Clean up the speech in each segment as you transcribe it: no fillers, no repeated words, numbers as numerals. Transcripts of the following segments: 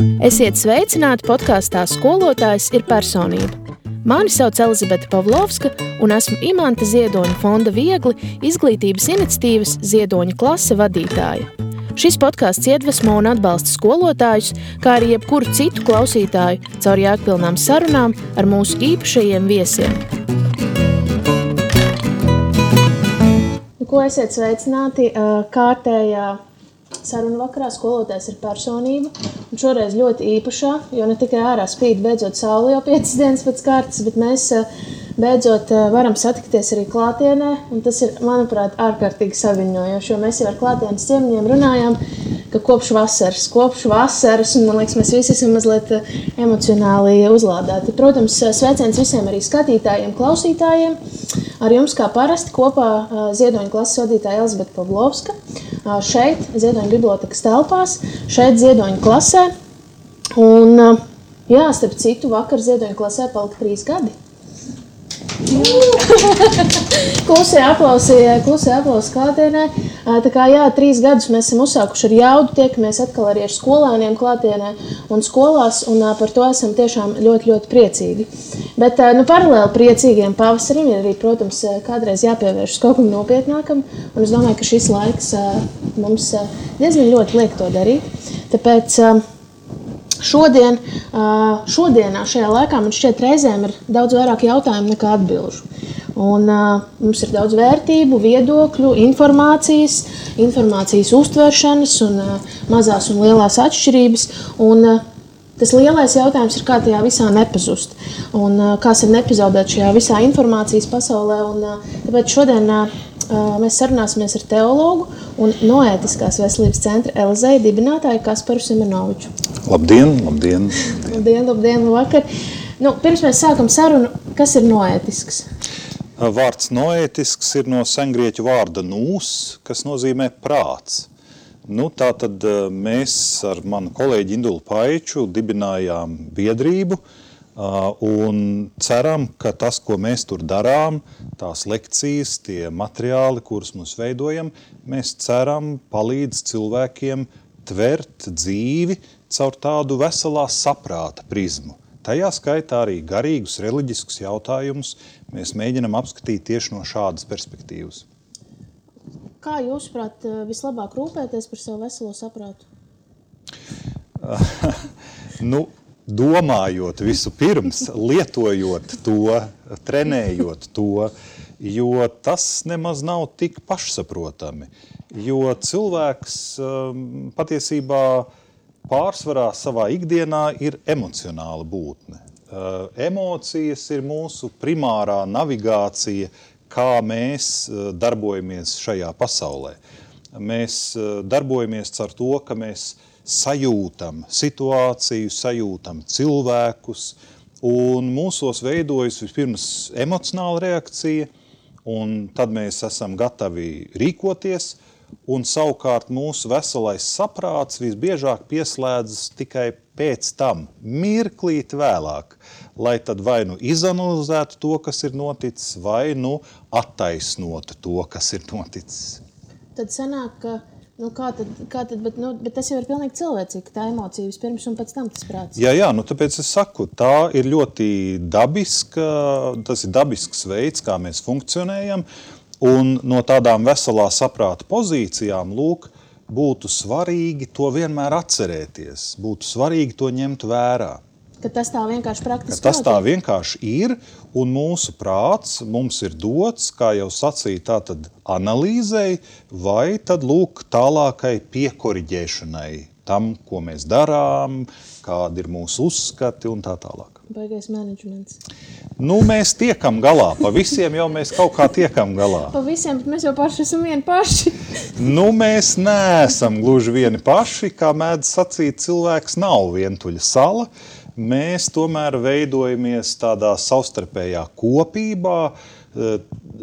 Esiet sveicināti podkāstā Skolotājs ir personība. Mani sauc Elizabete Pavlovska un esmu Imanta Ziedoņa fonda Viegli izglītības iniciatīvas Ziedoņa klase vadītāja. Šis podkāsts iedvesmo un atbalsta skolotājus, kā arī jebkuru citu klausītāju caur jēgpilnām sarunām ar mūsu īpašajiem viesiem. Ko esiet sveicināti kārtējā sarunu vakarā Skolotājs ir personība, un šoreiz ļoti īpašā, jo ne tikai ārā spīd beidzot saule jau 5 dienas pēc kārtas, bet mēs beidzot varam satikties arī klātienē, un tas ir, manuprāt, ārkārtīgi saviņojoši, jo mēs jau ar klātienes ciemiņiem runājām, ka kopš vasaras, un man liekas, mēs visi esam mazliet emocionāli uzlādēti. Protams, sveiciens visiem arī skatītājiem, klausītājiem, ar jums kā parasti kopā Ziedoņa klases vadītāja Elizabete Pavlovska, šeit Ziedoņa bibliotekas telpās, šeit Ziedoņa klasē, un jā, starp citu, vakar Ziedoņa klasē palika 3 gadi. Klusē aplausi klātienē. Tā kā jā, 3 gadus mēs esam uzsākuši ar jaudu, tiekamies atkal arī ar skolēniem klātienē un skolās, un par to esam tiešām ļoti, ļoti priecīgi. Bet paralēli priecīgiem pavasarim ir arī, protams, kādreiz jāpievēršas kaut kam nopietnākam, un es domāju, ka šis laiks mums diezgan ļoti liek to darīt. Tāpēc šodienā, šajā laikā, man šķiet reizēm ir daudz vairāk jautājumu nekā atbilžu. Un mums ir daudz vērtību, viedokļu, informācijas uztveršanas un mazās un lielās atšķirības. Un tas lielais jautājums ir, kā tajā visā nepazust. Un kā sev nepazaudēt šajā visā informācijas pasaulē. Un tāpēc šodien mēs sarunāsimies ar teologu un noētiskās veselības centra Elizeja dibinātāju Kasparu Simenoviču. Labdien! Labdien, vakar! Pirms mēs sākam sarunu, kas ir noētisks? Vārds noētisks ir no sengrieķu vārda nūs, kas nozīmē prāts. Tātad mēs ar manu kolēģi Indulu Paiču dibinājām biedrību un ceram, ka tas, ko mēs tur darām, tās lekcijas, tie materiāli, kurus mums veidojam, mēs ceram palīdz cilvēkiem tvert dzīvi caur tādu veselā saprāta prizmu. Tajā skaitā arī garīgus, reliģiskus jautājumus mēs mēģinam apskatīt tieši no šādas perspektīvas. Kā jūsuprāt vislabāk rūpēties par savu veselo saprātu? Domājot visu pirms, lietojot to, trenējot to, jo tas nemaz nav tik pašsaprotami. Jo cilvēks patiesībā pārsvarā savā ikdienā ir emocionāla būtne. Emocijas ir mūsu primārā navigācija, kā mēs darbojamies šajā pasaulē. Mēs darbojamies ar to, ka mēs sajūtam situāciju, sajūtam cilvēkus, un mūsos veidojas vispirms emocionāla reakcija, un tad mēs esam gatavi rīkoties, un savukārt mūsu veselais saprāts visbiežāk pieslēdzas tikai pēc tam, mirklīt vēlāk, lai tad vai izanalizētu to, kas ir noticis, vai attaisnotu to, kas ir noticis. Tad sanāk, ka bet tas jau ir pilnīgi cilvēcīgi, tā emocija vispirms un pēc tam tas prāts. Jā, tāpēc es saku, tā ir ļoti tas ir dabisks veids, kā mēs funkcionējam, un no tādām veselā saprāta pozīcijām, būtu svarīgi to vienmēr atcerēties, būtu svarīgi to ņemt vērā. Ka tas tā vienkārši praktiski notiek? Tas tā vienkārši ir, un mūsu prāts mums ir dots, kā jau sacīja, tātad analīzei, vai tad tālākai piekoriģēšanai tam, ko mēs darām, kādi ir mūsu uzskati un tā tālāk. Baigais menedžments. Mēs tiekam galā. Pa visiem jau mēs kaut kā tiekam galā. Pa visiem, bet mēs jau paši esam vieni paši. Mēs neesam gluži vieni paši. Kā mēdz sacīt, cilvēks nav vientuļa sala. Mēs tomēr veidojamies tādā savstarpējā kopībā,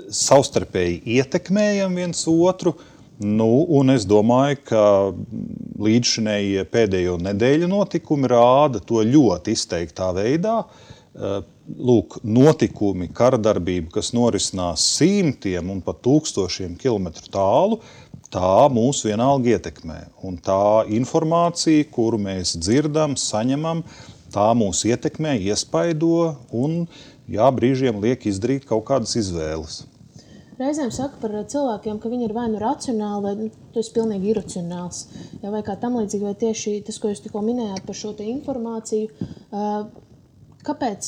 savstarpēji ietekmējam viens otru. Un es domāju, ka līdzšinējie pēdējo nedēļu notikumi rāda to ļoti izteiktā veidā. Notikumi, karadarbība, kas norisinās simtiem un pat tūkstošiem kilometru tālu, tā mūs vienalga ietekmē. Un tā informācija, kuru mēs dzirdam, saņemam, tā mūs ietekmē, iespaido un brīžiem liek izdarīt kaut kādas izvēles. Reizēm saka par cilvēkiem, ka viņi ir vai nu racionāli, vai tu esi pilnīgi iracionāls. Vai kā tam līdzīgi, vai tieši tas, ko jūs tikko minējāt par šo te informāciju. Kāpēc,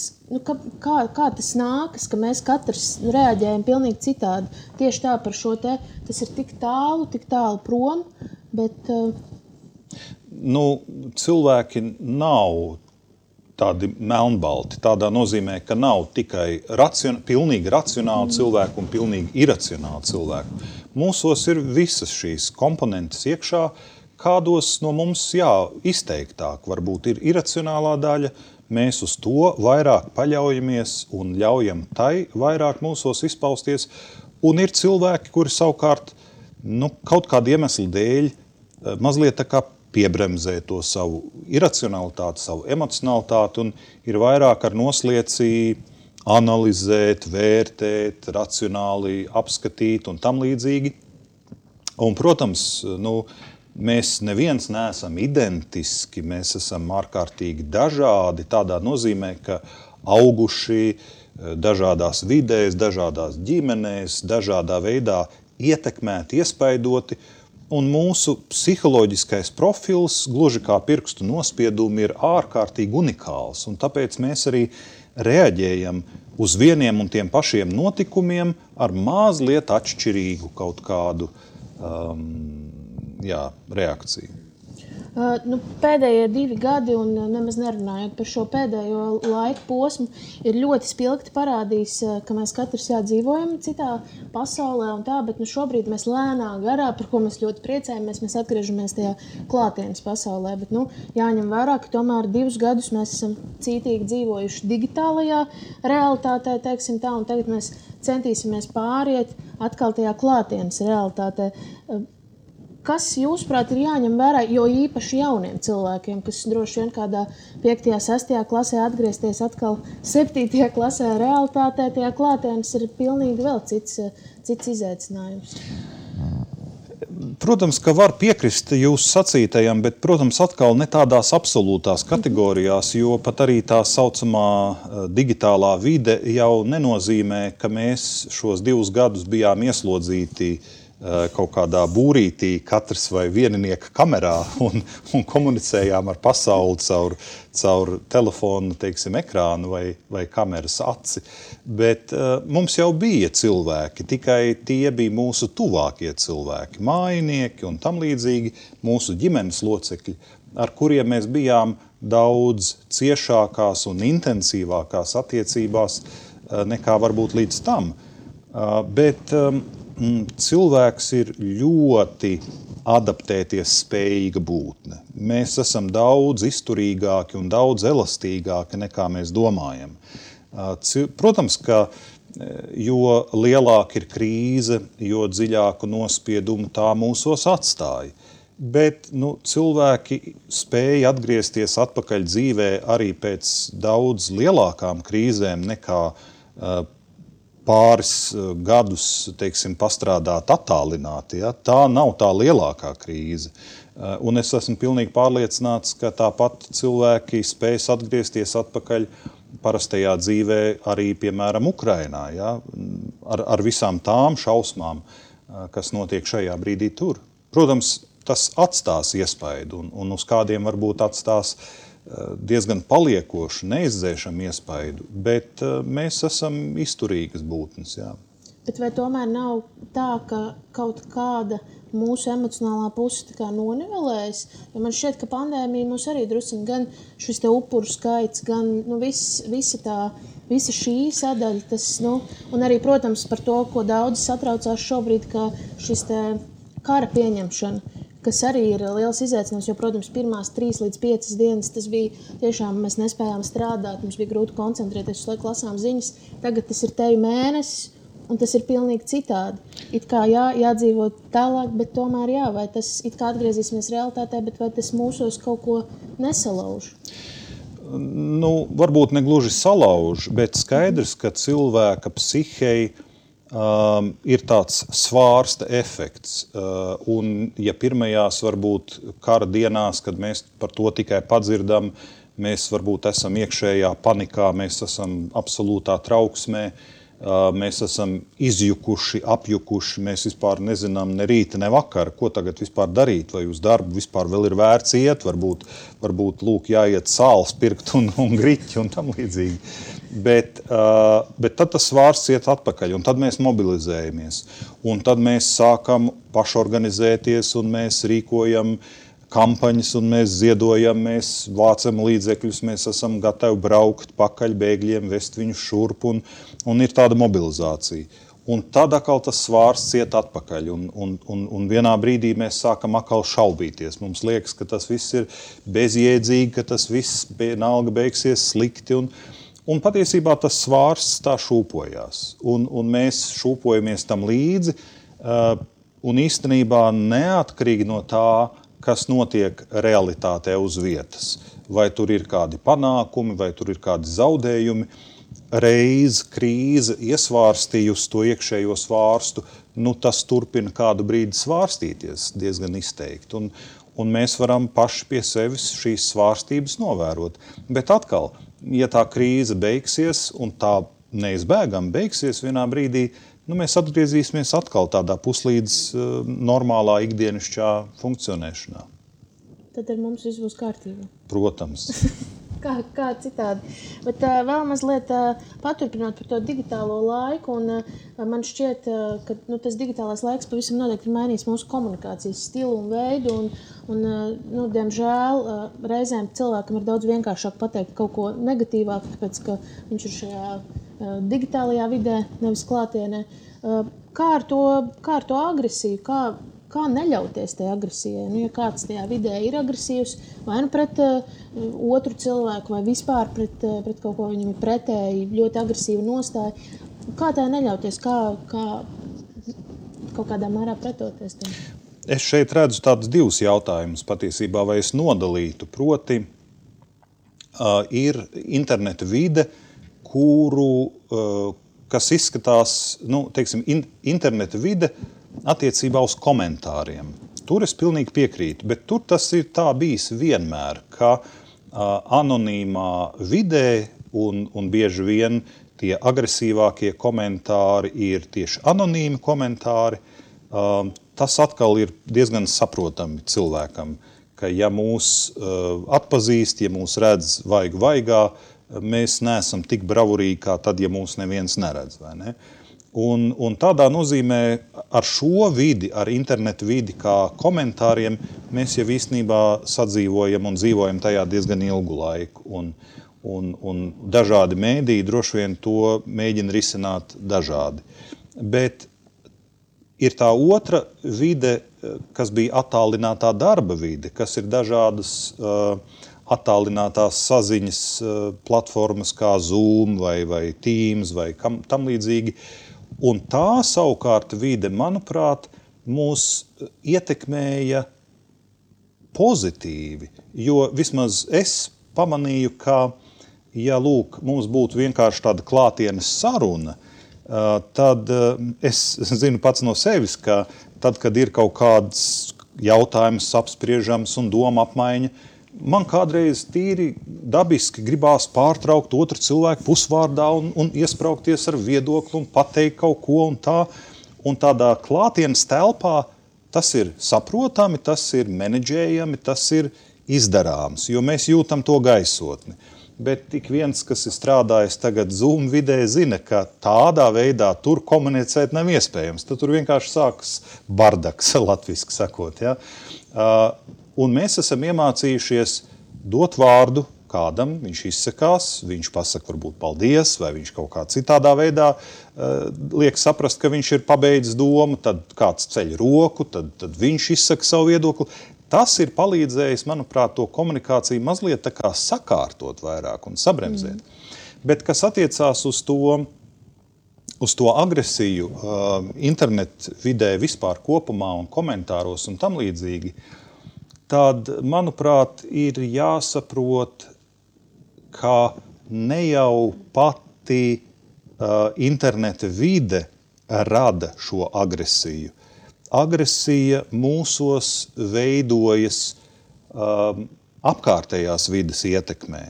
kā tas nākas, ka mēs katrs reaģējam pilnīgi citādi? Tieši tā par šo te, tas ir tik tālu prom, bet... Cilvēki nav tādi melnbalti, tādā nozīmē, ka nav tikai pilnīgi racionāli cilvēki un pilnīgi iracionāli cilvēki. Mūsos ir visas šīs komponentes iekšā, kādos no mums, izteiktāk varbūt ir iracionālā daļa, mēs uz to vairāk paļaujamies un ļaujam tai vairāk mūsos izpausties, un ir cilvēki, kuri savukārt, kaut kādu iemeslu dēļ mazliet tā kā piebremzē to savu iracionalitāti, savu emocionalitāti un ir vairāk ar noslieci analizēt, vērtēt, racionāli apskatīt un tam līdzīgi. Un, protams, mēs neviens neesam identiski, mēs esam ārkārtīgi dažādi, tādā nozīmē, ka auguši dažādās vidēs, dažādās ģimenēs, dažādā veidā ietekmēti, iespaidoti, un mūsu psiholoģiskais profils, gluži kā pirkstu nospiedumi, ir ārkārtīgi unikāls, un tāpēc mēs arī reaģējam uz vieniem un tiem pašiem notikumiem ar mazliet atšķirīgu kaut kādu reakciju. Pēdējie 2 gadi, un nemaz nerunājot par šo pēdējo laiku posmu, ir ļoti spilgti parādījis, ka mēs katrs dzīvojam citā pasaulē un tā, bet šobrīd mēs lēnā garā, par ko mēs ļoti priecājamies, mēs atgriežamies tajā klātienes pasaulē, bet jāņem vērā, ka tomēr 2 gadus mēs esam cītīgi dzīvojuši digitālajā realitātē, teiksim tā, un tagad mēs centīsimies pāriet atkal tajā klātienes realitātē. Kas, jūsuprāt, ir jāņem vērā, jo īpaši jauniem cilvēkiem, kas droši vien kādā 5., 6. klasē atgriezties atkal 7. klasē realitātē, tajā klātienes ir pilnīgi vēl cits izaicinājums? Protams, ka var piekrist jūsu sacītajam, bet, protams, atkal ne tādās absolūtās kategorijās, jo pat arī tā saucamā digitālā vide jau nenozīmē, ka mēs šos 2 gadus bijām ieslodzīti kaut kādā būrītī, katrs vai vieninieka kamerā un komunicējām ar pasauli caur telefonu, teiksim, ekrānu vai kameras aci. Bet mums jau bija cilvēki, tikai tie bija mūsu tuvākie cilvēki, mājinieki un tam līdzīgi mūsu ģimenes locekļi, ar kuriem mēs bijām daudz ciešākās un intensīvākās attiecībās nekā varbūt līdz tam. Bet cilvēks ir ļoti adaptēties spējīga būtne. Mēs esam daudz izturīgāki un daudz elastīgāki nekā mēs domājam. Protams, ka jo lielāka ir krīze, jo dziļāku nospiedumu tā mūsos atstāja. Bet cilvēki spēja atgriezties atpakaļ dzīvē arī pēc daudz lielākām krīzēm nekā pāris gadus, teiksim, pastrādāt attālināti. Ja? Tā nav tā lielākā krīze. Un es esmu pilnīgi pārliecināts, ka tāpat cilvēki spējas atgriezties atpakaļ parastajā dzīvē arī, piemēram, Ukrainā. Ja? Ar visām tām šausmām, kas notiek šajā brīdī tur. Protams, tas atstās iespaidu un uz kādiem varbūt atstās diezgan paliekošu, neizdzēšamu iespaidu, bet mēs esam izturīgas būtnes, jā. Bet vai tomēr nav tā, ka kaut kāda mūsu emocionālā puse tā kā nonivelējas? Jo man šķiet, ka pandēmija mūs arī drusciņ gan šis te upuru skaits, gan visa šī sadaļa, tas, un arī, protams, par to, ko daudzi satraucās šobrīd, ka šis te kara pieņemšana, kas arī ir liels izaicinājums, jo, protams, pirmās 3 līdz 5 dienas tas bija tiešām, mēs nespējām strādāt, mums bija grūti koncentrēties, uz laiku lasām ziņas, tagad tas ir teju mēnesis, un tas ir pilnīgi citādi. It kā jādzīvo tālāk, bet tomēr vai tas it kā atgriezīsimies realitātē, bet vai tas mūsos kaut ko nesalauž? Varbūt ne gluži salauž, bet skaidrs, ka cilvēka psihei ir tāds svārsta efekts. Un ja pirmajās varbūt kara dienās, kad mēs par to tikai padzirdam, mēs varbūt esam iekšējā panikā, mēs esam absolūtā trauksmē, mēs esam izjukuši, apjukuši, mēs vispār nezinām ne rīta, ne vakara, ko tagad vispār darīt, vai uz darbu vispār vēl ir vērts iet, varbūt lūk jāiet sāls pirkt un griķi un tam līdzīgi. Bet tad tas svārsts iet atpakaļ, un tad mēs mobilizējamies, un tad mēs sākam pašorganizēties, un mēs rīkojam kampaņas, un mēs ziedojam, mēs vācam līdzekļus, mēs esam gatavi braukt pakaļ bēgļiem, vest viņus šurp, un ir tāda mobilizācija. Un tad atkal tas svārsts iet atpakaļ, un vienā brīdī mēs sākam atkal šaubīties. Mums liekas, ka tas viss ir bezjēdzīgi, ka tas viss vienalga beigsies slikti, un patiesībā tas svārsts tā šūpojās, un mēs šūpojamies tam līdzi, un īstenībā neatkarīgi no tā, kas notiek realitātē uz vietas. Vai tur ir kādi panākumi, vai tur ir kādi zaudējumi. Reiz krīze iesvārstījusi to iekšējo svārstu, tas turpina kādu brīdi svārstīties diezgan izteikti. Un mēs varam paši pie sevis šīs svārstības novērot. Bet atkal, ja tā krīze beigsies, un tā neizbēgami beigsies vienā brīdī, mēs atgriezīsimies atkal tādā puslīdz normālā ikdienišķā funkcionēšanā. Tad ar mums viss būs kārtībā. Protams. Kā citādi. Bet vēl mazliet paturpinot par to digitālo laiku, un man šķiet, ka tas digitālais laiks pavisam noteikti ir mainījis mūsu komunikācijas stilu un veidu, un diemžēl, reizēm cilvēkam ir daudz vienkāršāk pateikt kaut ko negatīvāk, tāpēc, ka viņš ir šajā digitālajā vidē, nevis klātienē. Kā ar to agresiju? Kā neļauties tajā agresijai? Ja kāds tajā vidē ir agresīvs, vai pret otru cilvēku, vai vispār pret kaut ko viņam ir pretēji, ļoti agresīva nostāja, kā tā neļauties? Kā kaut kādā mērā pretoties tam? Es šeit redzu tādus divus jautājumus patiesībā, vai es nodalītu. Proti, ir interneta vide, kas izskatās, teiksim, interneta vide attiecībā uz komentāriem. Tur es pilnīgi piekrītu, bet tur tas ir tā bijis vienmēr, ka anonīmā vidē un bieži vien tie agresīvākie komentāri ir tieši anonīmi komentāri. Tas atkal ir diezgan saprotami cilvēkam, ka ja mūs atpazīst, ja mūs redz vaigā, mēs neesam tik bravurīgi, kā tad, ja mūs neviens neredz, vai ne? Un tādā nozīmē ar šo vidi, ar internetu vidi kā komentāriem, mēs jau īstenībā sadzīvojam un dzīvojam tajā diezgan ilgu laiku. Un dažādi mēdīji droši vien to mēģina risināt dažādi. Bet ir tā otra vide, kas bija attālinātā darba vide, kas ir dažādas attālinātās saziņas platformas kā Zoom vai Teams vai tam līdzīgi. Un tā savukārt vide, manuprāt, mūs ietekmēja pozitīvi, jo vismaz es pamanīju, ka, ja mums būtu vienkārši tāda klātienes saruna, tad es zinu pats no sevis, ka tad, kad ir kaut kāds jautājums apspriežams un doma apmaiņa, man kādreiz tīri dabiski gribās pārtraukt otru cilvēku pusvārdā un iespraukties ar viedokli un pateikt kaut ko un tā. Un tādā klātienes telpā tas ir saprotami, tas ir menedžējami, tas ir izdarāms, jo mēs jūtam to gaisotni. Bet tik viens, kas ir strādājis tagad Zoom vidē, zina, ka tādā veidā tur komunicēt nav iespējams. Tad tur vienkārši sākas bardaks, latviski sakot. Ja? Un mēs esam iemācījušies dot vārdu kādam, viņš izsakās, viņš pasaka varbūt paldies, vai viņš kaut kā citādā veidā liek saprast, ka viņš ir pabeidzis domu, tad kāds ceļ roku, tad viņš izsaka savu viedokli. Tas ir palīdzējis, manuprāt, to komunikāciju mazliet tā kā sakārtot vairāk un sabremzēt. Bet kas attiecās uz to agresiju internetu vidē vispār kopumā un komentāros un tam līdzīgi, tad, manuprāt, ir jāsaprot, ka ne jau pati interneta vide rada šo agresiju? Agresija mūsos veidojas apkārtējās vides ietekmē.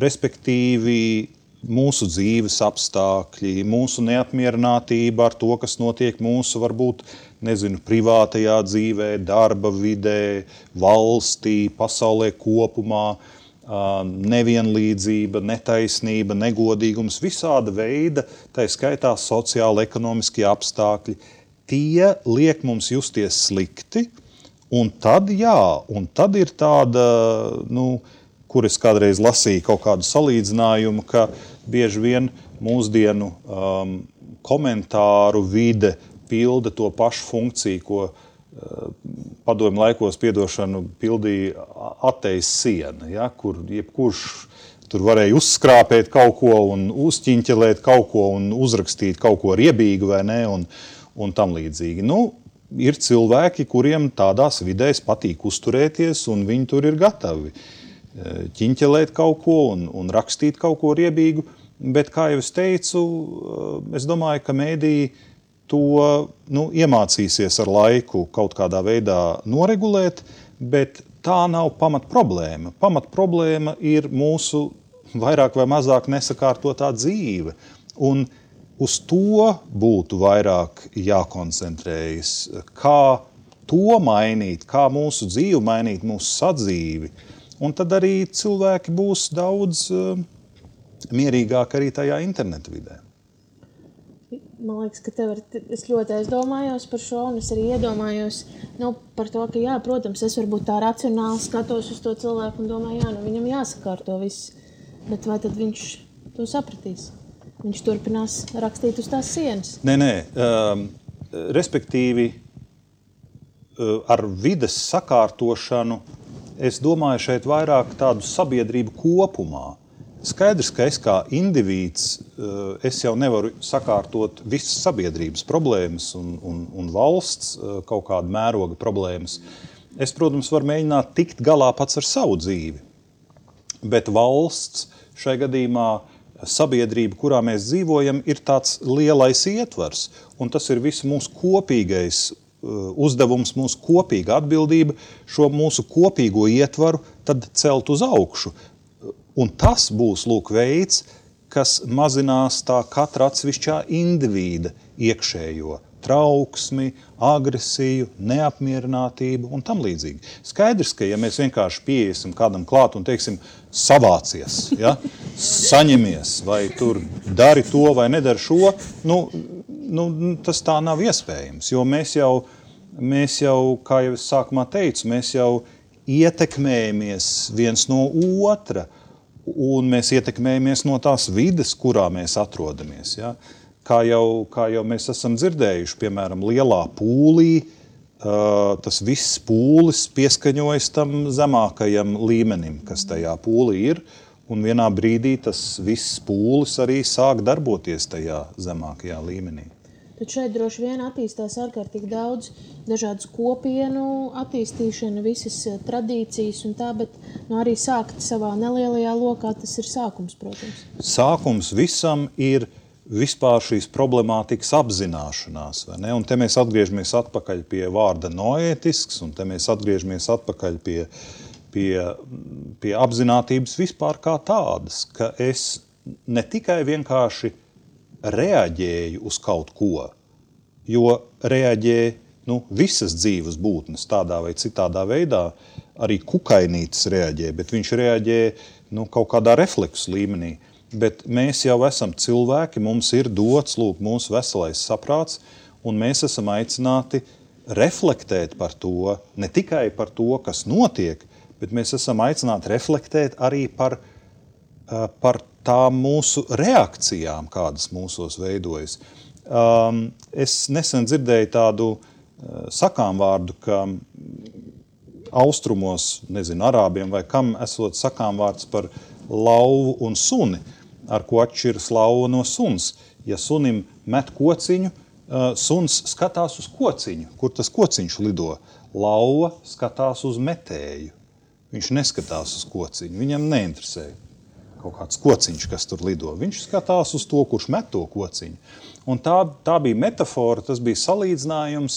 Respektīvi, mūsu dzīves apstākļi, mūsu neapmierinātība ar to, kas notiek mūsu, varbūt, privātajā dzīvē, darba vidē, valstī, pasaulē kopumā, nevienlīdzība, netaisnība, negodīgums, visāda veida, tā skaitā sociāli, ekonomiskie apstākļi, tie liek mums justies slikti, un tad ir tāda, kur es kādreiz lasīju kaut kādu salīdzinājumu, ka bieži vien mūsdienu komentāru vide pilda to pašu funkciju, ko padomju laikos pildīja atejas siena, ja, kur jebkurš tur varēja uzskrāpēt kaut ko un uzķiņķelēt kaut ko un uzrakstīt kaut ko riebīgu vai ne, un tam līdzīgi. Ir cilvēki, kuriem tādās vidēs patīk uzturēties, un viņi tur ir gatavi ķiņķelēt kaut ko un rakstīt kaut ko riebīgu, bet, kā jau es teicu, es domāju, ka mēdīji to iemācīsies ar laiku kaut kādā veidā noregulēt, bet tā nav pamatproblēma. Pamatproblēma ir mūsu vairāk vai mazāk nesakārtotā dzīve, un uz to būtu vairāk jākoncentrējas, kā to mainīt, kā mūsu dzīvi mainīt, mūsu sadzīvi. Un tad arī cilvēki būs daudz mierīgāk arī tajā interneta vidē. Man liekas, ka es ļoti aizdomājos par šo, un es arī iedomājos par to, ka jā, protams, es varbūt tā racionāli skatos uz to cilvēku un domāju, viņam jāsakārto viss, bet vai tad viņš to sapratīs? Viņš turpinās rakstīt uz tās sienas. Nē. Respektīvi, ar vides sakārtošanu, es domāju šeit vairāk tādu sabiedrību kopumā. Skaidrs, ka es kā indivīds, es jau nevaru sakārtot visas sabiedrības problēmas un valsts kaut kādu mēroga problēmas. Es, protams, varu mēģināt tikt galā pats ar savu dzīvi, bet valsts šai gadījumā sabiedrība, kurā mēs dzīvojam, ir tāds lielais ietvars, un tas ir visu mūsu kopīgais uzdevums, mūsu kopīga atbildība šo mūsu kopīgo ietvaru tad celt uz augšu. Un tas būs, veids, kas mazinās tā katra atsevišķā indivīda iekšējo trauksmi, agresiju, neapmierinātību un tam līdzīgi. Skaidrs, ka ja mēs vienkārši pieiesim kādam klāt un teiksim savācies, ja, saņemies, vai tur dari to vai nedari šo, tas tā nav iespējams, jo mēs jau, kā jau es sākumā teicu, mēs jau ietekmējamies viens no otra, un mēs ietekmējamies no tās vides, kurā mēs atrodamies. Ja? Kā jau mēs esam dzirdējuši, piemēram, lielā pūlī, tas viss pūlis pieskaņojas tam zemākajam līmenim, kas tajā pūlī ir, un vienā brīdī tas viss pūlis arī sāk darboties tajā zemākajā līmenī. Tad šeit droši vien attīstās ārkārtīgi daudz dažādas kopienu attīstīšana, visas tradīcijas un tā, bet arī sākt savā nelielajā lokā, tas ir sākums, protams. Sākums visam ir vispār šīs problemātikas apzināšanās, vai ne? Un te mēs atgriežamies atpakaļ pie vārda noētisks, un te mēs atgriežamies atpakaļ pie apzinātības vispār kā tādas, ka es ne tikai vienkārši reaģēju uz kaut ko, jo reaģē visas dzīves būtnes tādā vai citādā veidā, arī kukainītis reaģē, bet viņš reaģē kaut kādā refleksu līmenī. Bet mēs jau esam cilvēki, mums ir dots mūsu veselais saprāts, un mēs esam aicināti reflektēt par to, ne tikai par to, kas notiek, bet mēs esam aicināti reflektēt arī par tām mūsu reakcijām, kādas mūsos veidojas. Es nesen dzirdēju tādu sakāmvārdu, ka austrumos, arābiem vai kam, esot sakāmvārds par lauvu un suni, ar ko atšķiras lauva no suns. Ja sunim met kociņu, suns skatās uz kociņu, kur tas kociņš lido. Lauva skatās uz metēju. Viņš neskatās uz kociņu, viņam neinteresē, kaut kāds kociņš, kas tur lido. Viņš skatās uz to, kurš met to kociņu. Un tā bija metafora, tas bija salīdzinājums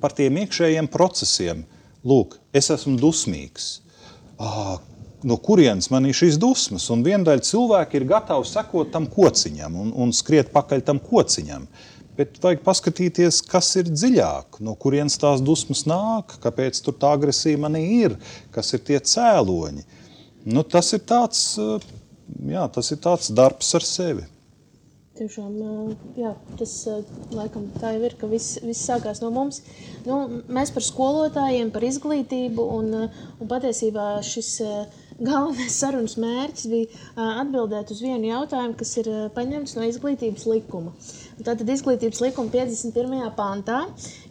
par tiem iekšējiem procesiem. Lūk, es esmu dusmīgs. No kurienes man ir šīs dusmas? Un viendaļa cilvēki ir gatavi sekot tam kociņam un skriet pakaļ tam kociņam. Bet vajag paskatīties, kas ir dziļāk, no kurienes tās dusmas nāk, kāpēc tur tā agresija manī ir, kas ir tie cēloņi. Nu, tas ir tāds darbs ar sevi. Tiešām, jā, tas laikam tā jau ir, ka viss sākās no mums. Nu, mēs par skolotājiem, par izglītību un patiesībā šis galvenais sarunas mērķis bija atbildēt uz vienu jautājumu, kas ir paņemts no izglītības likuma. Tātad izglītības likuma 51. pantā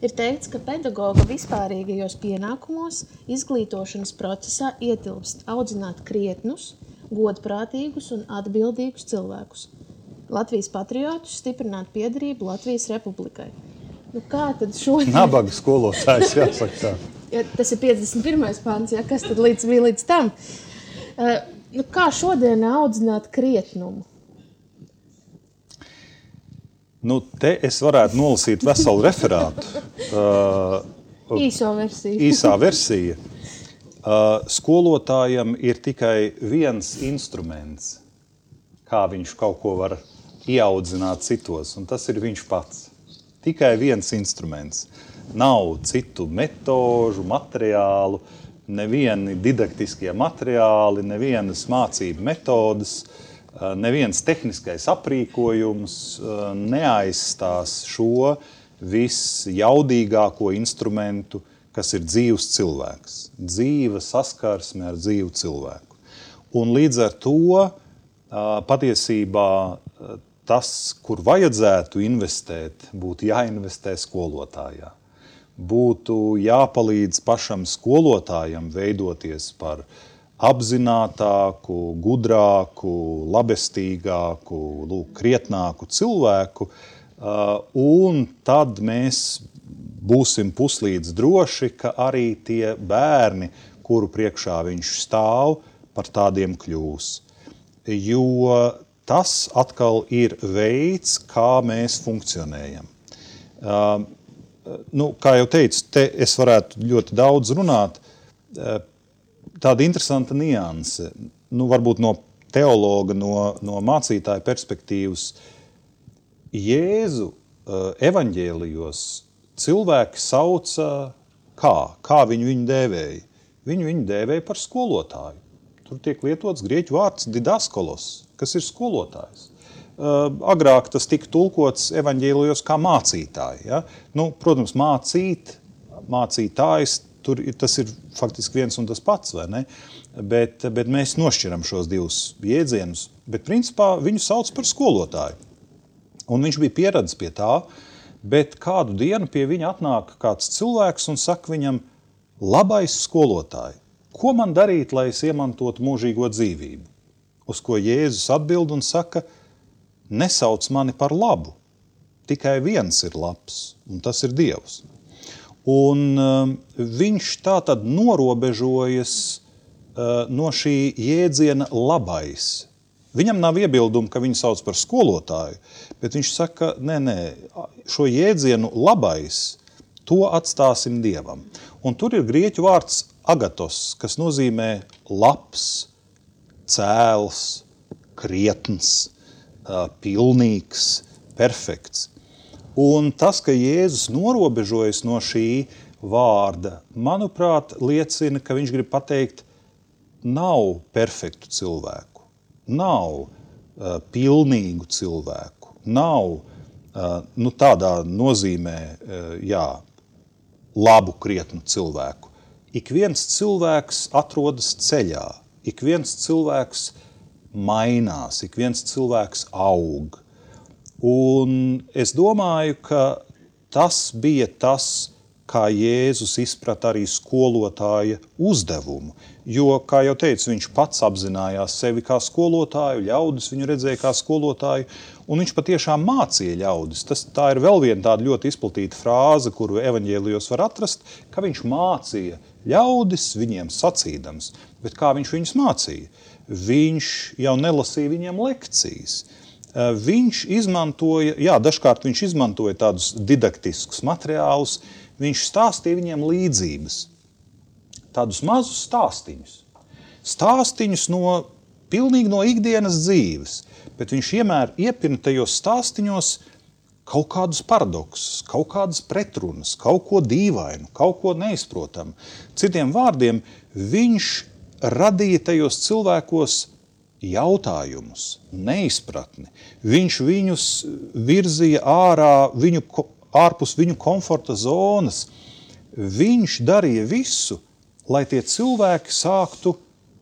ir teikts, ka pedagoga vispārīgajos pienākumos izglītošanas procesā ietilpst audzināt krietnus, godprātīgus un atbildīgus cilvēkus. Latvijas patriotus, stiprināt piederību Latvijas republikai. Nu, kā tad šodien? Nabaga skolotājs, jāsaka tā. Ja, tas ir 51. pants, ja, kas tad bija līdz tam? Nu, kā šodien audzināt krietnumu? Nu, te es varētu nolasīt veselu referātu. Īso versiju. Īsā versija. Skolotājam ir tikai viens instruments, kā viņš kaut ko var ieaudzināt citos, un tas ir viņš pats. Tikai viens instruments. Nav citu metožu, materiālu, nevieni didaktiskie materiāli, nevienas mācību metodas, neviens tehniskais aprīkojums neaizstās šo visjaudīgāko instrumentu, kas ir dzīvs cilvēks. Dzīva saskarsme ar dzīvu cilvēku. Un līdz ar to patiesībā tas, kur vajadzētu investēt, būtu jāinvestē skolotājā. Būtu jāpalīdz pašam skolotājam veidoties par apzinātāku, gudrāku, labestīgāku, krietnāku cilvēku, un tad mēs būsim puslīdz droši, ka arī tie bērni, kuru priekšā viņš stāv, par tādiem kļūs. Jo tas atkal ir veids, kā mēs funkcionējam. Kā jau teicu, te es varētu ļoti daudz runāt. Tāda interesanta nianse, varbūt no teologa, no mācītāja perspektīvas. Jēzu evaņģēlijos cilvēki sauca kā viņu dēvēja? Viņu dēvēja par skolotāju. Tur tiek lietots grieķu vārds didaskolos, kas ir skolotājs. Agrāk tas tika tulkots evaņģēlijos kā mācītāji. Ja? Protams, mācītājs, tas ir faktiski viens un tas pats, vai ne? Bet mēs nošķiram šos divus jēdzienus, bet principā viņu sauc par skolotāju. Un viņš bija pieradis pie tā, bet kādu dienu pie viņa atnāk kāds cilvēks un saka viņam: labais skolotāji, ko man darīt, lai es iemantotu mūžīgo dzīvību? Uz ko Jēzus atbild un saka: nesauc mani par labu, tikai viens ir labs, un tas ir Dievs. Un viņš tātad norobežojas no šī jēdziena labais. Viņam nav iebildumu, ka viņu sauc par skolotāju, bet viņš saka, nē, šo jēdzienu labais, to atstāsim Dievam. Un tur ir grieķu vārds agatos, kas nozīmē labs, cēls, krietns, pilnīgs, perfekts. Un tas, ka Jēzus norobežojas no šī vārda, manuprāt, liecina, ka viņš grib pateikt, nav perfektu cilvēku, nav pilnīgu cilvēku, nav tādā nozīmē, labu, krietnu cilvēku. Ik viens cilvēks atrodas ceļā, ik viens cilvēks mainās, ik viens cilvēks aug. Un es domāju, ka tas bija tas, kā Jēzus izprata arī skolotāja uzdevumu. Jo, kā jau teicu, viņš pats apzinājās sevi kā skolotāju, ļaudis viņu redzēja kā skolotāju, un viņš patiešām mācīja ļaudis. Tā ir vēl viena tāda ļoti izplatīta frāze, kuru evaņģēlijos var atrast, ka viņš mācīja ļaudis viņiem sacīdams, bet kā viņš viņus mācīja? Viņš jau nelasīja viņiem lekcijas. Viņš izmantoja, dažkārt viņš izmantoja tādus didaktiskus materiālus, viņš stāstīja viņiem līdzības, tādus mazus stāstiņus. Stāstiņus pilnīgi no ikdienas dzīves, bet viņš vienmēr iepina tajos stāstiņos kaut kādus paradoksus, kaut kādas pretrunas, kaut ko dīvainu, kaut ko neizprotamu. Citiem vārdiem, viņš radīja tajos cilvēkos jautājumus, neizpratni. Viņš viņus virzīja ārpus viņu komforta zonas. Viņš darīja visu, lai tie cilvēki sāktu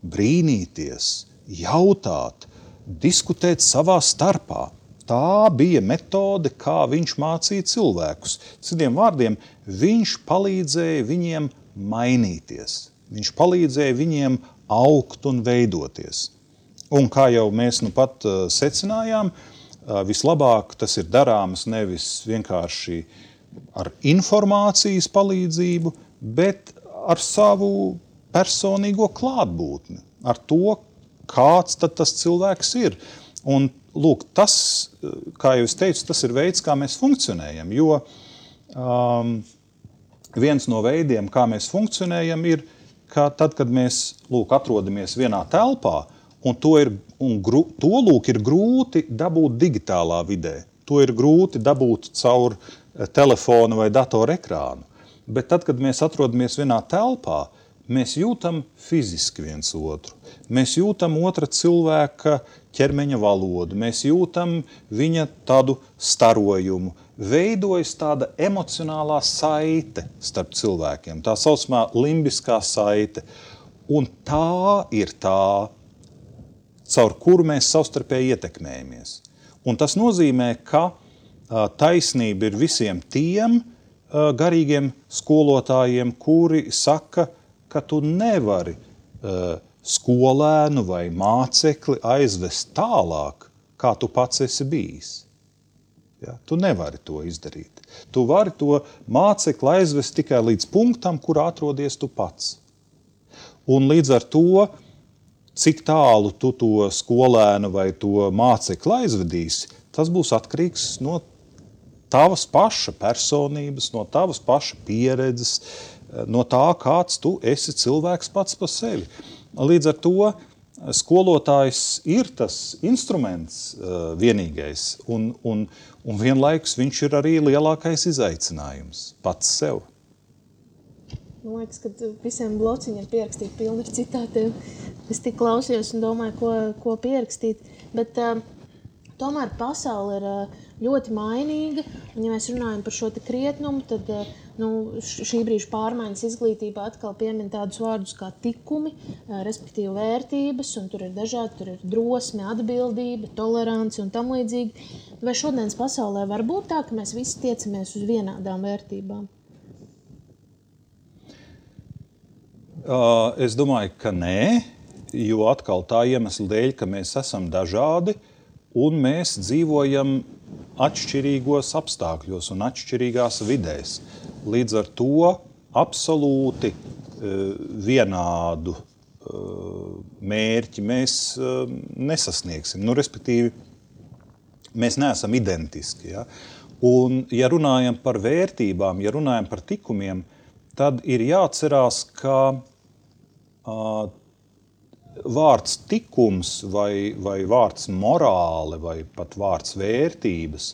brīnīties, jautāt, diskutēt savā starpā. Tā bija metode, kā viņš mācīja cilvēkus. Citiem vārdiem, viņš palīdzēja viņiem mainīties. Viņš palīdzēja viņiem augt un veidoties. Un kā jau mēs nu pat secinājām, vislabāk tas ir darāms nevis vienkārši ar informācijas palīdzību, bet ar savu personīgo klātbūtni, ar to, kāds tad tas cilvēks ir. Un lūk, tas, kā jau es teicu, tas ir veids, kā mēs funkcionējam, jo viens no veidiem, kā mēs funkcionējam, ir, ka tad, kad mēs atrodamies vienā telpā, un to ir grūti dabūt digitālā vidē, to ir grūti dabūt caur telefonu vai datoru ekrānu. Bet tad, kad mēs atrodamies vienā telpā, mēs jūtam fiziski viens otru. Mēs jūtam otra cilvēka ķermeņa valodu, mēs jūtam viņa tādu starojumu. Veidojas tāda emocionālā saite starp cilvēkiem, tā saucamā limbiskā saite. Un tā ir tā, caur kuru mēs savstarpēji ietekmējamies. Un tas nozīmē, ka taisnība ir visiem tiem garīgiem skolotājiem, kuri saka, ka tu nevari skolēnu vai mācekli aizvest tālāk, kā tu pats esi bijis. Ja? Tu nevari to izdarīt. Tu vari to mācekli aizvest tikai līdz punktam, kur atrodies tu pats. Un līdz ar to, cik tālu tu to skolēnu vai to mācekli aizvedīsi, tas būs atkarīgs no tavas paša personības, no tavas paša pieredzes, no tā, kāds tu esi cilvēks pats par sevi. Līdz ar to skolotājs ir tas instruments vienīgais, un vienlaikus viņš ir arī lielākais izaicinājums pats sev. Man liekas, ka visiem blociņiem pierakstīt pilni ar citātiem. Es tik klausījos un domāju, ko pierakstīt. Bet tomēr pasaule ir ļoti mainīga. Un, ja mēs runājam par šo te krietnumu, tad šī brīža pārmaiņas izglītībā atkal piemin tādus vārdus kā tikumi, respektīvi vērtības, un tur ir dažādi, tur ir drosme, atbildība, tolerance un tam līdzīgi. Vai šodienas pasaulē var būt tā, ka mēs visi tiecamies uz vienādām vērtībām? Es domāju, ka nē, jo atkal tā iemesla dēļ, ka mēs esam dažādi un mēs dzīvojam atšķirīgos apstākļos un atšķirīgās vidēs. Līdz ar to absolūti vienādu mērķi mēs nesasniegsim. Respektīvi, mēs neesam identiski. Ja? Un, ja runājam par vērtībām, ja runājam par tikumiem, tad ir jāatcerās, ka vārds tikums vai vārds morāle vai pat vārds vērtības,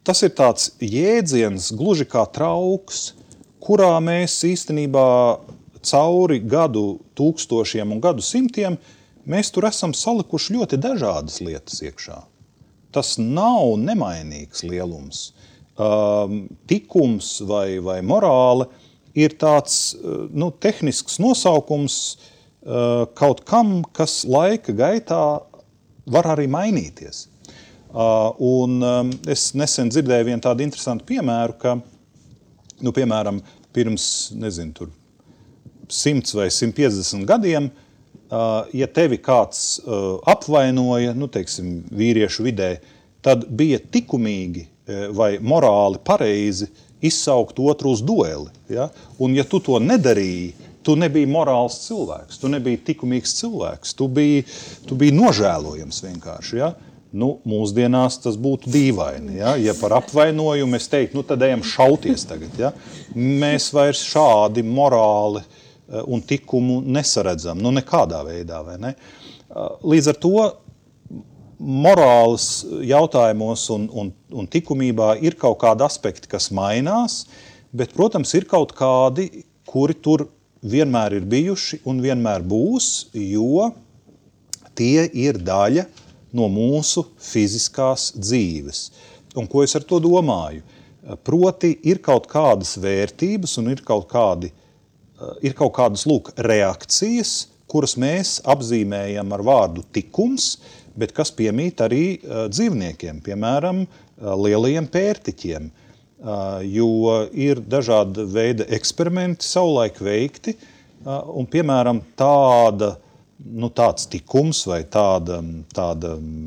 tas ir tāds jēdziens gluži kā trauks, kurā mēs īstenībā cauri gadu tūkstošiem un gadu simtiem mēs tur esam salikuši ļoti dažādas lietas iekšā. Tas nav nemainīgs lielums. Tikums vai morāle ir tāds tehnisks nosaukums kaut kam, kas laika gaitā var arī mainīties. Un es nesen dzirdēju vienu tādu interesantu piemēru, ka, piemēram, pirms, 100 vai 150 gadiem, ja tevi kāds apvainoja, vīriešu vidē, tad bija tikumīgi vai morāli pareizi izsaukt otru uz dueli. Ja? Un ja tu to nedarīji, tu nebija morāls cilvēks, tu nebija likumīgs cilvēks, tu biji nožēlojams vienkārši. Ja? Nu, mūsdienās tas būtu dīvaini. Ja par apvainojumu es teiktu, nu tad ejam šauties tagad. Ja? Mēs vairs šādi morāli un likumu nesaredzam, nu nekādā veidā, vai ne? Līdz ar to morāles jautājumos un likumībā ir kaut kādi aspekti, kas mainās, bet, protams, ir kaut kādi, kuri tur vienmēr ir bijuši un vienmēr būs, jo tie ir daļa no mūsu fiziskās dzīves. Un ko es ar to domāju? Proti, ir kaut kādas vērtības un ir kaut kādas reakcijas, kuras mēs apzīmējam ar vārdu tikums, bet kas piemīt arī dzīvniekiem, piemēram, lielajiem pērtiķiem, jo ir dažāda veida eksperimenti savulaik veikti, un, piemēram, tāds tikums vai tāda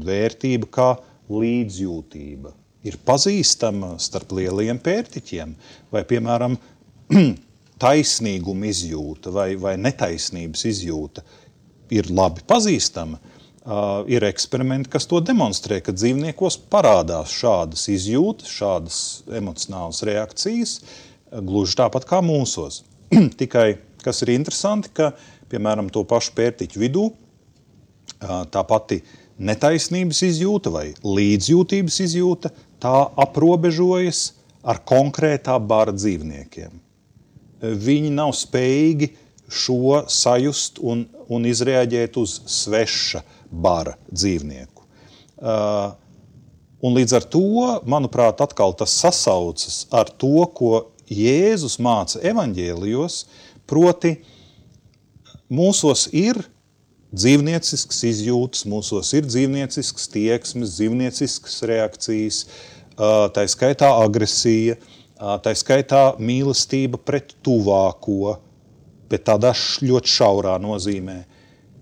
vērtība kā līdzjūtība ir pazīstama starp lielajiem pērtiķiem, vai, piemēram, taisnīguma izjūta vai netaisnības izjūta ir labi pazīstama. Ir eksperimenti, kas to demonstrē, ka dzīvniekos parādās šādas izjūtas, šādas emocionālas reakcijas, gluži tāpat kā mūsos. Tikai, kas ir interesanti, ka, piemēram, to pašu pērtiķu vidū, tā pati netaisnības izjūta vai līdzjūtības izjūta, tā aprobežojas ar konkrētā bara dzīvniekiem. Viņi nav spējīgi šo sajust un izreaģēt uz sveša bara dzīvnieku. Un līdz ar to, manuprāt, atkal tas sasaucas ar to, ko Jēzus māca evaņģēlijos, proti mūsos ir dzīvniecisks izjūtas, mūsos ir dzīvniecisks tieksmes, dzīvnieciskas reakcijas, tā skaitā agresija, tā skaitā mīlestība pret tuvāko, bet tādā ļoti šaurā nozīmē.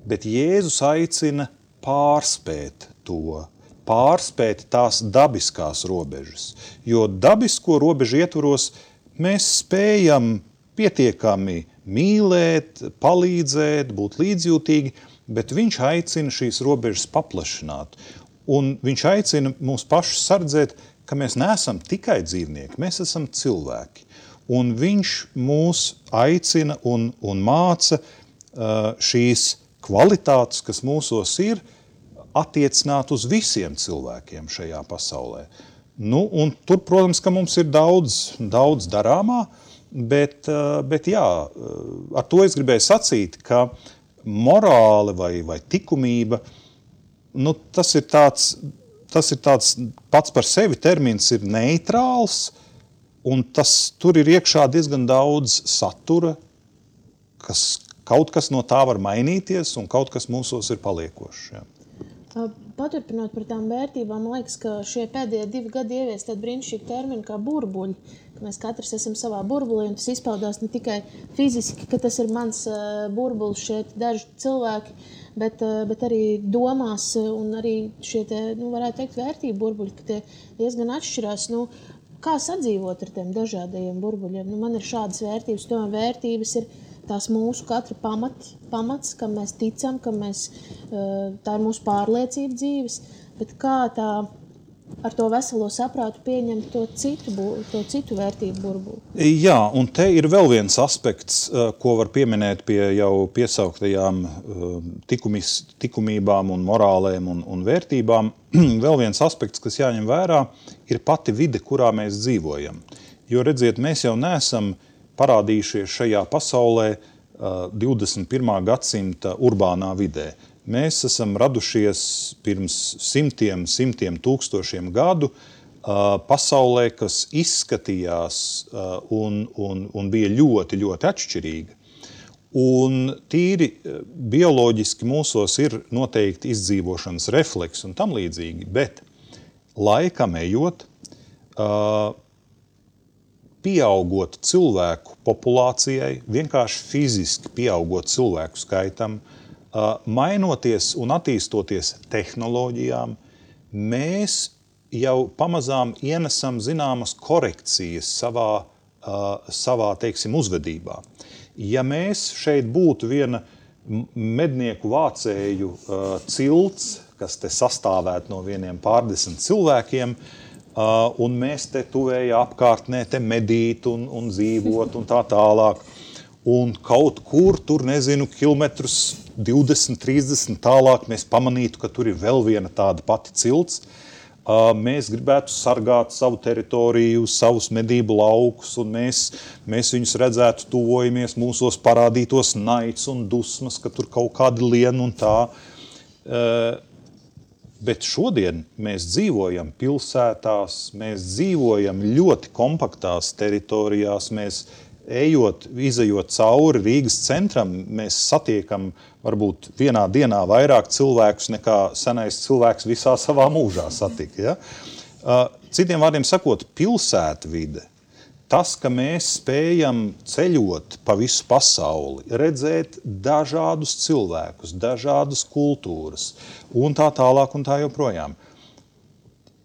Bet Jēzus aicina pārspēt to, pārspēt tās dabiskās robežas. Jo dabisko robežu ietvaros mēs spējam pietiekami mīlēt, palīdzēt, būt līdzjūtīgi, bet viņš aicina šīs robežas paplašināt. Un viņš aicina mūs pašus sardzēt, ka mēs neesam tikai dzīvnieki, mēs esam cilvēki. Un viņš mūs aicina un māca šīs kvalitātes, kas mūsos ir, attiecināt uz visiem cilvēkiem šajā pasaulē. Nu, un tur, protams, ka mums ir daudz darāmā, bet jā, ar to es gribēju sacīt, ka morāle vai likumība, nu, tas ir tāds pats par sevi termins ir neitrāls, un tur ir iekšā diezgan daudz satura, kaut kas no tā var mainīties, un kaut kas mūsos ir paliekošs. Jā. Paturpinot par tām vērtībām, man liekas, ka šie pēdējie 2 gadi ievies tādu brīnišķīgu terminu kā burbuļi, ka mēs katrs esam savā burbulī, un tas izpaudās ne tikai fiziski, ka tas ir mans burbulis šeit daži cilvēki, bet arī domās, un arī šie, varētu teikt, vērtību burbuļi, ka tie diezgan atšķirās. Kā sadzīvot ar tiem dažādajiem burbuļiem? Man ir šādas vērtības, tomēr vērtības ir tās mūsu katra pamats, kam mēs ticam, tā ir mūsu pārliecība dzīves, bet kā tā ar to veselo saprātu pieņemt to citu vērtību burbuli? Jā, un te ir vēl viens aspekts, ko var pieminēt pie jau piesauktajām likumībām un morālēm un vērtībām. Vēl viens aspekts, kas jāņem vērā, ir pati vide, kurā mēs dzīvojam. Jo, redziet, mēs jau neesam parādījušies šajā pasaulē 21. gadsimta urbānā vidē. Mēs esam radušies pirms simtiem tūkstošiem gadu pasaulē, kas izskatījās un bija ļoti, ļoti atšķirīga. Un tīri bioloģiski mūsos ir noteikti izdzīvošanas refleks un tam līdzīgi, bet laikam ejot, pieaugot cilvēku populācijai, vienkārši fiziski pieaugot cilvēku skaitam, mainoties un attīstoties tehnoloģijām, mēs jau pamazām ienesam zināmas korekcijas savā teiksim, uzvedībā. Ja mēs šeit būtu viena mednieku vācēju cilts, kas te sastāvētu no vieniem pārdesmit cilvēkiem, un mēs te tuvējā apkārtnē te medīt un dzīvot un tā tālāk, un kaut kur tur, nezinu, kilometrus 20, 30 tālāk mēs pamanītu, ka tur ir vēl viena tāda pati cilts. Mēs gribētu sargāt savu teritoriju, savus medību laukus, un mēs viņus redzētu, tuvojamies, mūsos parādītos naids un dusmas, ka tur kaut kādi lien un tā. Bet šodien mēs dzīvojam pilsētās, mēs dzīvojam ļoti kompaktās teritorijās, mēs izejot cauri Rīgas centram, mēs satiekam varbūt vienā dienā vairāk cilvēkus nekā senais cilvēks visā savā mūžā satika. Ja? Citiem vārdiem sakot, pilsētvide, tas, ka mēs spējam ceļot pa visu pasauli, redzēt dažādus cilvēkus, dažādas kultūras un tā tālāk un tā joprojām.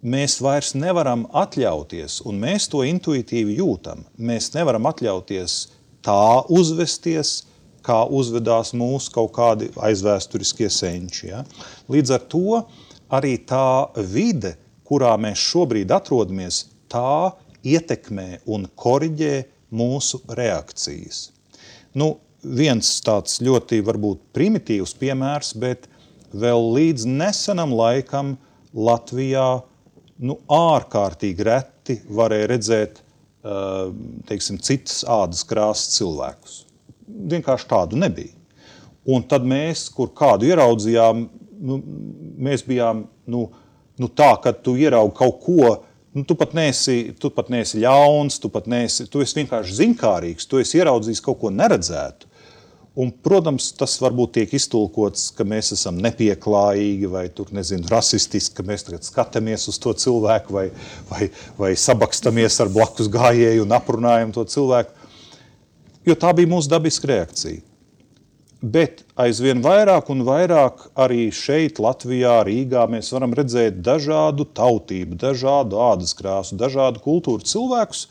Mēs vairs nevaram atļauties, un mēs to intuitīvi jūtam, mēs nevaram atļauties tā uzvesties, kā uzvedās mūsu kaut kādi aizvēsturiskie senči. Ja? Līdz ar to arī tā vide, kurā mēs šobrīd atrodamies, tā ietekmē un koriģē mūsu reakcijas. Viens tāds ļoti varbūt primitīvs piemērs, bet vēl līdz nesenam laikam Latvijā ārkārtīgi reti varēja redzēt, teiksim, citas ādas krāsas cilvēkus. Vienkārši tādu nebija. Un tad mēs, kur kādu ieraudzījām, mēs bijām, tā, kad tu ieraugi kaut ko, tu pat neesi ļauns, tu esi vienkārši ziņkārīgs, tu esi ieraudzījis kaut ko neredzētu. Un, protams, tas varbūt tiek iztulkots, ka mēs esam nepieklājīgi vai rasistiski, ka mēs tagad skatāmies uz to cilvēku vai sabakstamies ar blakus gājēju un aprunājam to cilvēku, jo tā bija mūsu dabiska reakcija. Bet aizvien vairāk un vairāk arī šeit, Latvijā, Rīgā, mēs varam redzēt dažādu tautību, dažādu ādas krāsu, dažādu kultūru cilvēkus,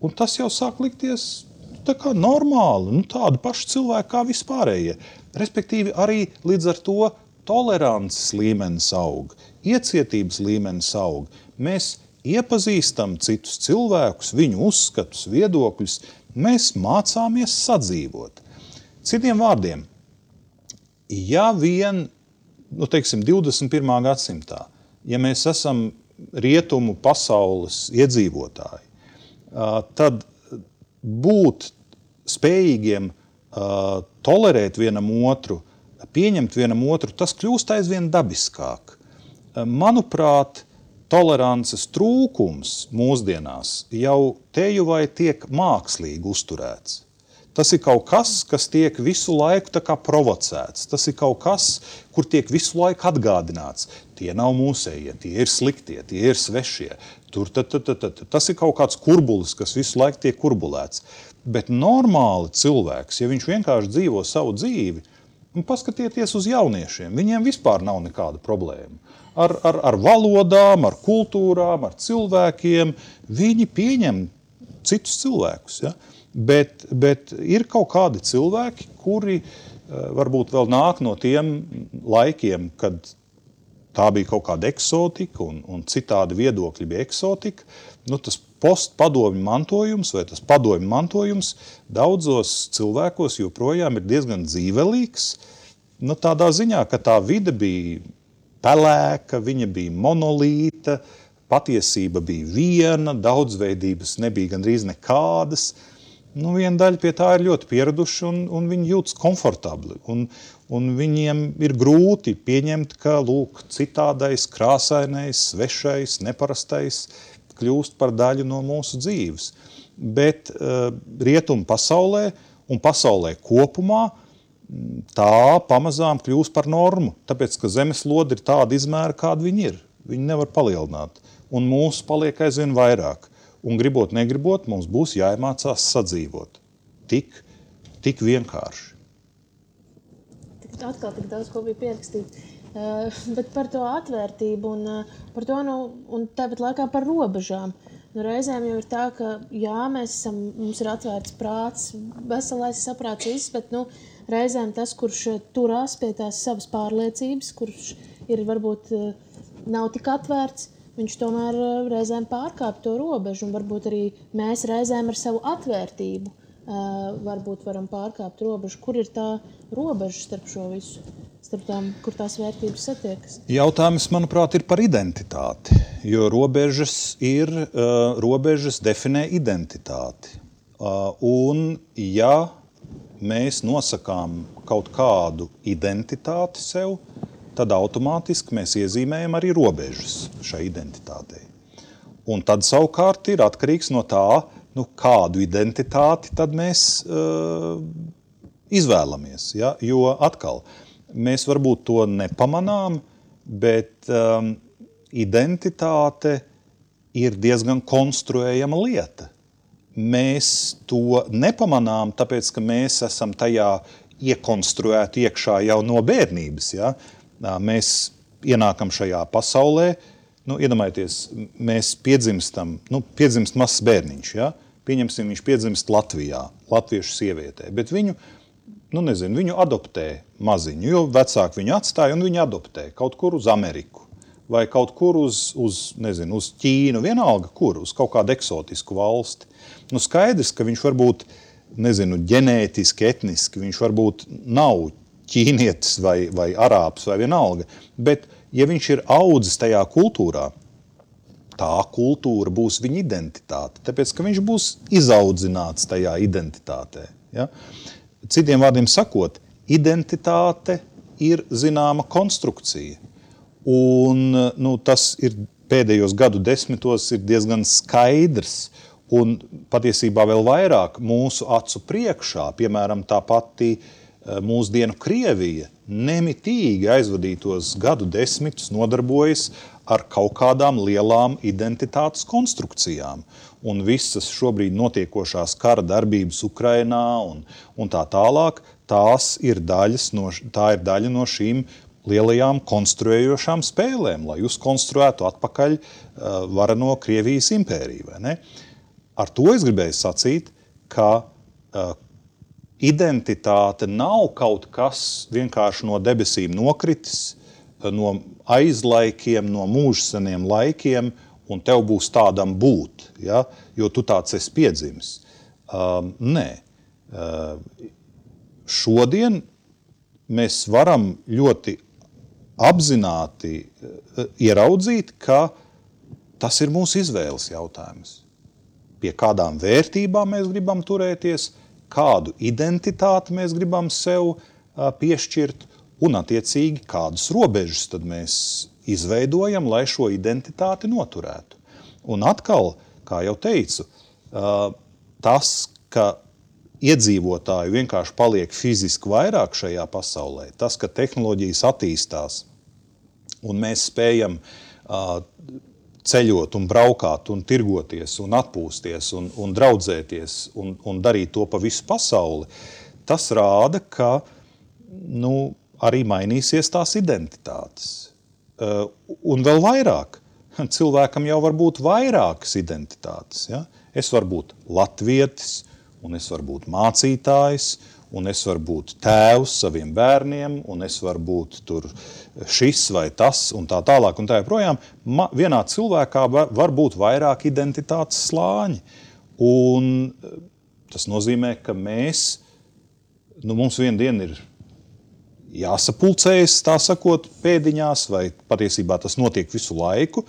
un tas jau sāk likties tā kā normāli, tādi paši cilvēki kā vispārējie. Respektīvi arī līdz ar to tolerances līmenis aug, iecietības līmenis aug. Mēs iepazīstam citus cilvēkus, viņu uzskatus, viedokļus, mēs mācāmies sadzīvot. Citiem vārdiem, ja vien, 21. gadsimtā, ja mēs esam rietumu pasaules iedzīvotāji, tad būt spējīgiem tolerēt vienam otru, pieņemt vienam otru, tas kļūst aizvien dabiskāk. Manuprāt, tolerances trūkums mūsdienās jau teju vai tiek mākslīgi uzturēts. Tas ir kaut kas, kas tiek visu laiku tā kā provocēts. Tas ir kaut kas, kur tiek visu laiku atgādināts. Tie nav mūsējie, tie ir sliktie, tie ir svešie. Tas ir kaut kāds kurbulis, kas visu laiku tiek kurbulēts. Bet normāli cilvēks, ja viņš vienkārši dzīvo savu dzīvi, paskatieties uz jauniešiem, viņiem vispār nav nekāda problēma. Ar valodām, ar kultūrām, ar cilvēkiem, viņi pieņem citus cilvēkus. Ja? Bet ir kaut kādi cilvēki, kuri varbūt vēl nāk no tiem laikiem, kad tā bija kaut kāda eksotika un citādi viedokļi bija eksotika. Tas postpadomju mantojums vai tas padomju mantojums daudzos cilvēkos joprojām ir diezgan dzīvelīgs. Tādā ziņā, ka tā vide bija pelēka, viņa bija monolīta, patiesība bija viena, daudzveidības nebija gandrīz nekādas. Viena daļa pie tā ir ļoti pieraduši un viņi jūtas komfortabli. Un viņiem ir grūti pieņemt, ka citādais, krāsainais, svešais, neparastais kļūst par daļu no mūsu dzīves. Bet rietumu pasaulē un pasaulē kopumā tā pamazām kļūst par normu, tāpēc, ka zemeslode ir tāda izmēra, kāda viņi ir. Viņi nevar palielināt. Un mūsu paliek aizvien vairāk. Un gribot, negribot, mums būs jāiemācās sadzīvot. Tik vienkārši. Atkal tik daudz, ko bija pierakstīt. Bet par to atvērtību un par to, un tāpat laikā par robežām. Reizēm jau ir tā, ka jā, mums ir atvērts prāts, veselais saprāts viss, bet reizēm tas, kurš turās pie tās savas pārliecības, kurš ir varbūt nav tik atvērts, viņš tomēr reizēm pārkāp to robežu, un varbūt arī mēs reizēm ar savu atvērtību varbūt varam pārkāpt robežu. Kur ir tā robeža starp šo visu? Starp tām, kur tās vērtības satiekas? Jautājums, manuprāt, ir par identitāti, jo robežas definē identitāti. Un ja mēs nosakām kaut kādu identitāti sev, tad automātiski mēs iezīmējam arī robežas šai identitātei. Un tad savukārt ir atkarīgs no tā, kādu identitāti tad mēs izvēlamies. Ja? Jo atkal, mēs varbūt to nepamanām, bet identitāte ir diezgan konstruējama lieta. Mēs to nepamanām, tāpēc, ka mēs esam tajā iekonstruēti iekšā jau no bērnības. Ja? Mēs ienākam šajā pasaulē, iedomājieties, mēs piedzimst mazs bērniņš, ja? Pieņemsim, viņš piedzimst Latvijā, latviešu sievietē, bet viņu adoptē maziņu, jo vecāki viņu atstāja un viņu adoptē kaut kur uz Ameriku vai kaut kur uz Ķīnu, vienalga kur, uz kaut kādu eksotisku valsti. Skaidrs, ka viņš varbūt, ģenētiski, etniski, viņš varbūt nav ķīnietis vai arābs vai vienalga, bet ja viņš ir audzis tajā kultūrā, tā kultūra būs viņa identitāte, tāpēc, ka viņš būs izaudzināts tajā identitātē. Ja? Citiem vārdiem sakot, identitāte ir zināma konstrukcija. Un tas ir pēdējos gadu desmitos ir diezgan skaidrs un patiesībā vēl vairāk mūsu acu priekšā, piemēram, tā pati mūsdienu Krievija nemitīgi aizvadītos gadu desmitus nodarbojas ar kaut kādām lielām identitātes konstrukcijām. Un visas šobrīd notiekošās kara darbības Ukrainā un tā tālāk, tā ir daļa no šīm lielajām konstruējošām spēlēm, lai uzkonstruētu atpakaļ vareno Krievijas impēriju. Vai ne? Ar to es gribēju sacīt, ka identitāte nav kaut kas vienkārši no debesīm nokritis, no aizlaikiem, no mūžseniem laikiem, un tev būs tādam būt, ja? Jo tu tāds esi piedzimis. Nē. Šodien mēs varam ļoti apzināti ieraudzīt, ka tas ir mūsu izvēles jautājums. Pie kādām vērtībām mēs gribam turēties, kādu identitāti mēs gribam sev piešķirt, un attiecīgi kādas robežas tad mēs izveidojam, lai šo identitāti noturētu. Un atkal, kā jau teicu, tas, ka iedzīvotāji vienkārši paliek fiziski vairāk šajā pasaulē, tas, ka tehnoloģijas attīstās un mēs spējam ceļot un braukāt un tirgoties un atpūsties un draudzēties un darīt to pa visu pasauli, tas rāda, ka arī mainīsies tās identitātes. Un vēl vairāk. Cilvēkam jau var būt vairākas identitātes. Ja? Es varu būt latvietis, un es varu būt mācītājs, un es varu būt tēvs saviem bērniem, un es varu būt tur šis vai tas, un tā tālāk, un tā joprojām. Vienā cilvēkā var būt vairāk identitātes slāņi. Un tas nozīmē, ka mums vienu dienu ir jāsapulcējas, tā sakot, pēdiņās, vai patiesībā tas notiek visu laiku,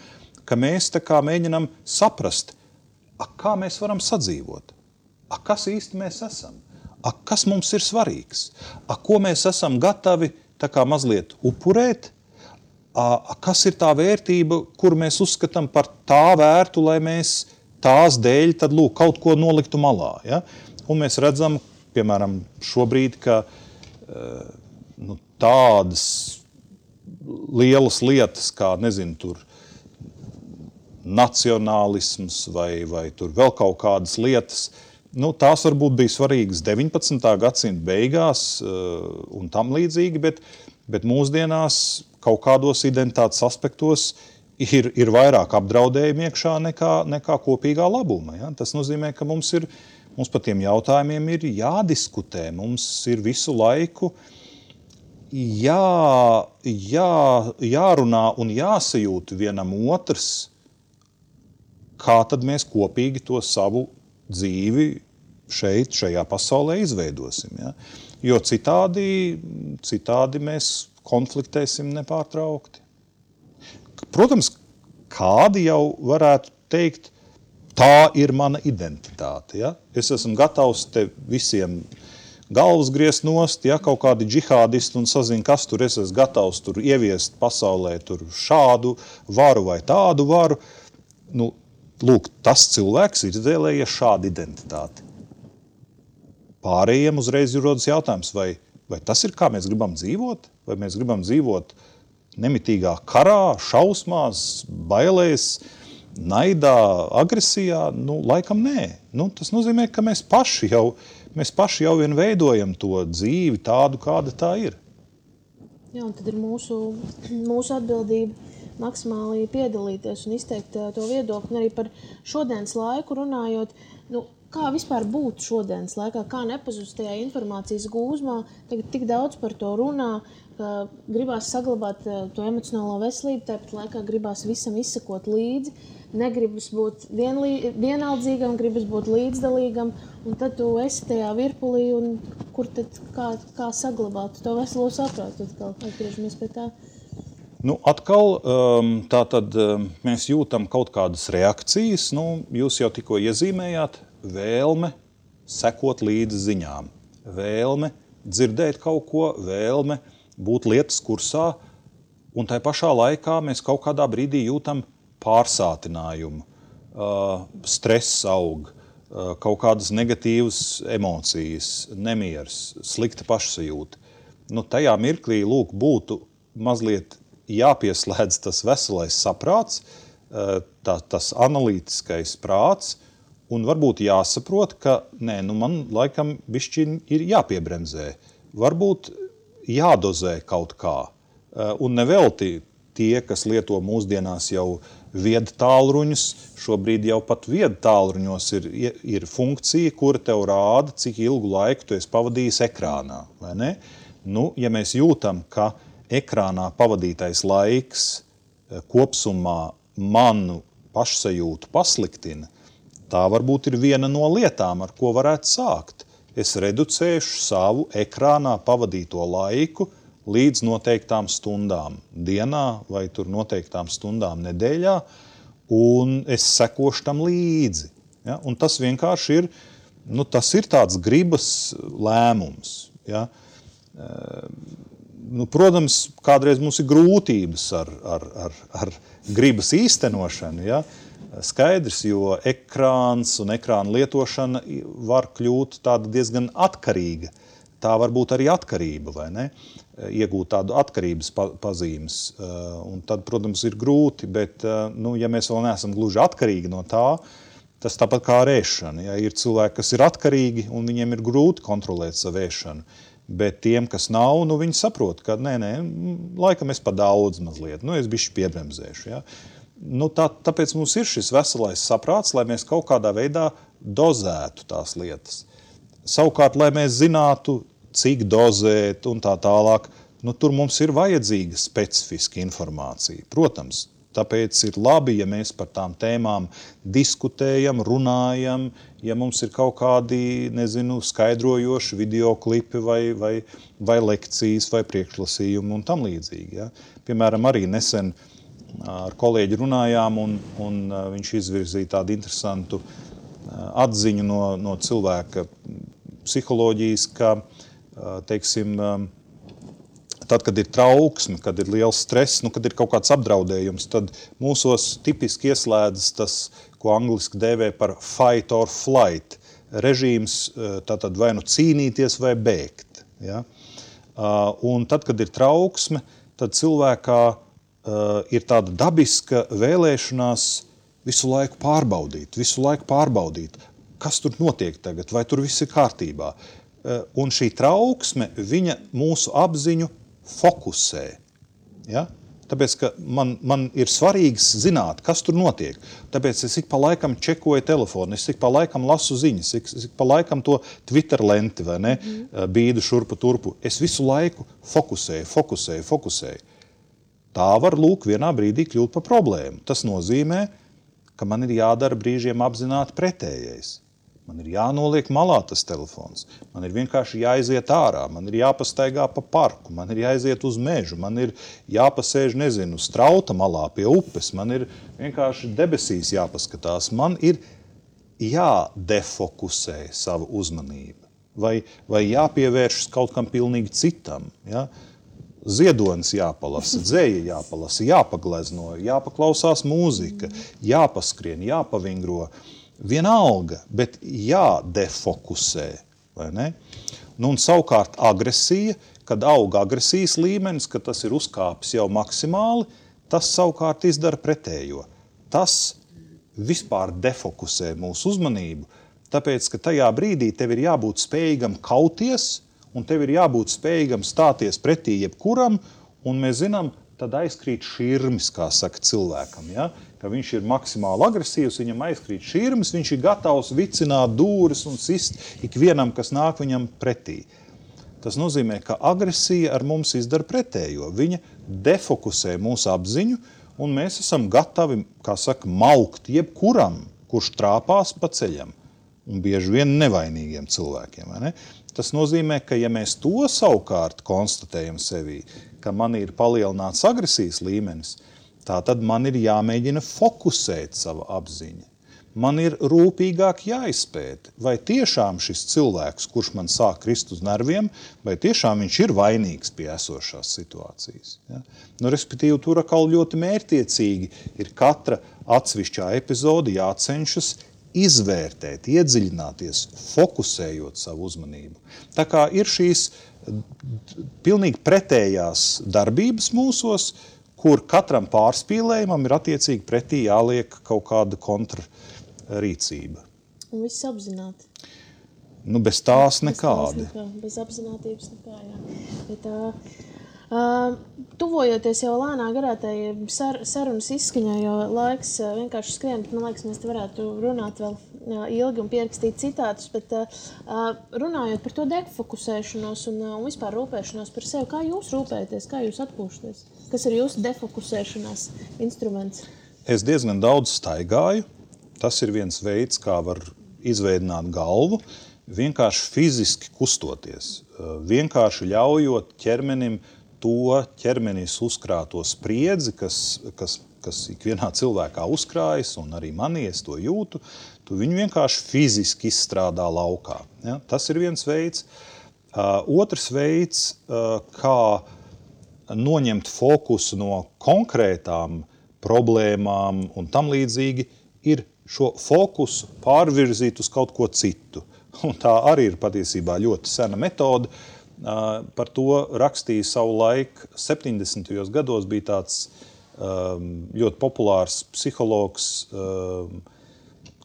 ka mēs tā kā mēģinam saprast, kā mēs varam sadzīvot, kas īsti mēs esam, kas mums ir svarīgs, ko mēs esam gatavi tā kā mazliet upurēt, kas ir tā vērtība, kuru mēs uzskatām par tā vērtu, lai mēs tās dēļ tad, kaut ko noliktu malā. Ja? Un mēs redzam, piemēram, šobrīd, ka tādas lielas lietas, kā, tur nacionālisms vai tur vēl kaut kādas lietas, tās varbūt bija svarīgas 19. gadsimta beigās un tam līdzīgi, bet bet mūsdienās kaut kādos identitātes aspektos ir vairāk apdraudējumi iekšā nekā kopīgā labuma. Ja? Tas nozīmē, ka mums par tiem jautājumiem ir jādiskutē, mums ir visu laiku jārunā un jāsajūt vienam otrs, kā tad mēs kopīgi to savu dzīvi šajā pasaulē izveidosim. Ja? Jo citādi mēs konfliktēsim nepārtraukti. Protams, kādi jau varētu teikt, tā ir mana identitāte. Ja? Es esmu gatavs te visiem galvas griezt nost, ja kaut kādi džihādisti un sazina, kas tur es esmu gatavs tur ieviest pasaulē tur šādu varu vai tādu varu. Nu, lūk, tas cilvēks ir izvēlējies šādu identitāti. Pārējiem uzreiz ir rodas jautājums, vai tas ir, kā mēs gribam dzīvot? Vai mēs gribam dzīvot nemitīgā karā, šausmās, bailēs, naidā, agresijā? Nu, laikam nē. Nu, tas nozīmē, ka mēs paši jau vien veidojam to dzīvi tādu, kāda tā ir. Jā, un tad ir mūsu atbildība maksimāli piedalīties un izteikt to viedokli. Un arī par šodienas laiku runājot, kā vispār būt šodienas laikā, kā nepazust tajā informācijas gūzmā, tagad tik daudz par to runā, ka gribās saglabāt to emocionālo veselību, tāpat laikā gribās visam izsekot līdzi, negribas būt vienaldzīgam, gribas būt līdzdalīgam, un tad tu esi tajā virpulī, un kur tad kā saglabāt to veselo saprātu, atkal atgriežamies pie tā. Nu, atkal, tātad mēs jūtam kaut kādas reakcijas, jūs jau tikko iezīmējāt, vēlme sekot līdzi ziņām, vēlme dzirdēt kaut ko, vēlme būt lietas kursā, un tai pašā laikā mēs kaut kādā brīdī jūtam pārsātinājumu, stress aug, kaut kādas negatīvas emocijas, nemieras, slikta pašsajūta. Tajā mirklī, lūk, būtu mazliet jāpieslēdz tas veselais saprāts, tas analītiskais prāts, un varbūt jāsaprot, ka man laikam bišķiņ ir jāpiebremzē. Varbūt jādozē kaut kā. Un nevelti tie, kas lieto mūsdienās jau viedu tālruņus, šobrīd jau pat viedu tālruņos ir funkcija, kura tev rāda, cik ilgu laiku tu esi pavadījis ekrānā. Vai ne? Ja mēs jūtam, ka ekrānā pavadītais laiks kopsumā manu pašsajūtu pasliktina, tā varbūt ir viena no lietām, ar ko varētu sākt. Es reducēšu savu ekrānā pavadīto laiku līdz noteiktām stundām dienā vai tur noteiktām stundām nedēļā, un es sekošu tam līdzi. Ja? Un tas vienkārši ir, tas ir tāds gribas lēmums. Ja? Protams, kādreiz mums ir grūtības ar gribas īstenošanu, ja? Skaidrs, jo ekrāns un ekrāna lietošana var kļūt tāda diezgan atkarīga. Tā var būt arī atkarība, vai ne? Iegūt tādu atkarības pazīmes. Un tad, protams, ir grūti, bet, ja mēs vēl neesam gluži atkarīgi no tā, tas tāpat kā ar ēšanu. Ja? Ir cilvēki, kas ir atkarīgi, un viņiem ir grūti kontrolēt savu ēšanu. Bet tiem, kas nav, viņi saprot, ka laikam es pa daudz mazliet, es bišķi piebremzēšu. Ja? Tāpēc mums ir šis veselais saprāts, lai mēs kaut kādā veidā dozētu tās lietas. Savukārt, lai mēs zinātu, cik dozēt un tā tālāk, tur mums ir vajadzīga specifiska informācija. Protams, tāpēc ir labi, ja mēs par tām tēmām diskutējam, runājam, ja mums ir kaut kādi, skaidrojoši videoklipi vai lekcijas vai priekšlasījumi un tam līdzīgi. Ja? Piemēram, arī nesen ar kolēģi runājām, un viņš izvirzīja tādu interesantu atziņu no cilvēka psiholoģijas, ka, teiksim, tad, kad ir trauksme, kad ir liels stress, kad ir kaut kāds apdraudējums, tad mūsos tipiski ieslēdzas tas, ko angliski dēvē par fight or flight. Režīms tātad vai cīnīties vai bēgt. Ja? Un tad, kad ir trauksme, tad cilvēkā ir tāda dabiska vēlēšanās visu laiku pārbaudīt, kas tur notiek tagad, vai tur viss ir kārtībā. Un šī trauksme, viņa mūsu apziņu fokusē. Ja? Tāpēc, ka man ir svarīgi zināt, kas tur notiek. Tāpēc es ik pa laikam čekoju telefonu, es ik pa laikam lasu ziņas, es ik pa laikam to Twitter lenti, vai ne, bīdu šurpu turpu. Es visu laiku fokusēju. Tā var lūk vienā brīdī kļūt par problēmu. Tas nozīmē, ka man ir jādara brīžiem apzināti pretējais. Man ir jānoliek malā tas telefons, man ir vienkārši jāiziet ārā, man ir jāpastaigā pa parku, man ir jāiziet uz mežu, man ir jāpasēž, strauta malā pie upes, man ir vienkārši debesīs jāpaskatās, man ir jādefokusē savu uzmanību vai jāpievēršas kaut kam pilnīgi citam. Ja? Ziedonis jāpalasa, dzēja jāpalasa, jāpaglezno, jāpaklausās mūzika, jāpaskrien, jāpavingro. Vienalga, bet jādefokusē, vai ne? Nu, un savukārt agresija, kad aug agresijas līmenis, kad tas ir uzkāpis jau maksimāli, tas savukārt izdara pretējo. Tas vispār defokusē mūsu uzmanību, tāpēc, ka tajā brīdī tev ir jābūt spējīgam kauties, un tev ir jābūt spējīgam stāties pretī jebkuram, un mēs zinām, tad aizkrīt širmis, kā saka cilvēkam, ja? Ka viņš ir maksimāli agresīvs, viņam aizkrīt širmis, viņš ir gatavs vicināt dūris un sist ikvienam, kas nāk viņam pretī. Tas nozīmē, ka agresija ar mums izdara pretējo. Viņa defokusē mūsu apziņu, un mēs esam gatavi, kā saka, maukt jebkuram, kurš trāpās pa ceļam, un bieži vien nevainīgiem cilvēkiem, vai ne? Tas nozīmē, ka ja mēs to savukārt konstatējam sevī, ka man ir palielināts agresijas līmenis, tā tad man ir jāmēģina fokusēt savu apziņu. Man ir rūpīgāk jāizpēta, vai tiešām šis cilvēks, kurš man sāk krist uz nerviem, vai tiešām viņš ir vainīgs pie esošās situācijas. Ja? Nu, respektīvi, tur atkal ļoti mērķtiecīgi ir katra atsevišķā epizode jācenšas izvērtēt, iedziļināties, fokusējot savu uzmanību. Tā kā ir šīs pilnīgi pretējās darbības mūsos, kur katram pārspīlējumam ir attiecīgi pretī jāliek kaut kāda kontrarīcība. Un viss apzināti. Nu, bez tās nekādi. Bez apzinātības nekā, jā. Bet tuvojoties jau lēnā garā tai sarunas izskaņā, jo laiks vienkārši skrien, bet man liekas, mēs te varētu runāt vēl ilgi un pierakstīt citātus, bet runājot par to defokusēšanos un vispār rūpēšanos par sevi, kā jūs rūpējaties, kā jūs atpūšaties? Kas ir jūsu defokusēšanās instruments? Es diezgan daudz staigāju. Tas ir viens veids, kā var izveidināt galvu, vienkārši fiziski kustoties, vienkārši ļaujot ķermenim to ķermenis uzkrāto spriedzi, kas ikvienā cilvēkā uzkrājas, un arī manī es to jūtu, tu viņu vienkārši fiziski izstrādā laukā. Ja? Tas ir viens veids. Otrs veids, kā noņemt fokusu no konkrētām problēmām un tam līdzīgi, ir šo fokusu pārvirzīt uz kaut ko citu. Un tā arī ir patiesībā ļoti sena metode. Par to rakstīja savu laiku 70. gados, bija tāds ļoti populārs psihologs,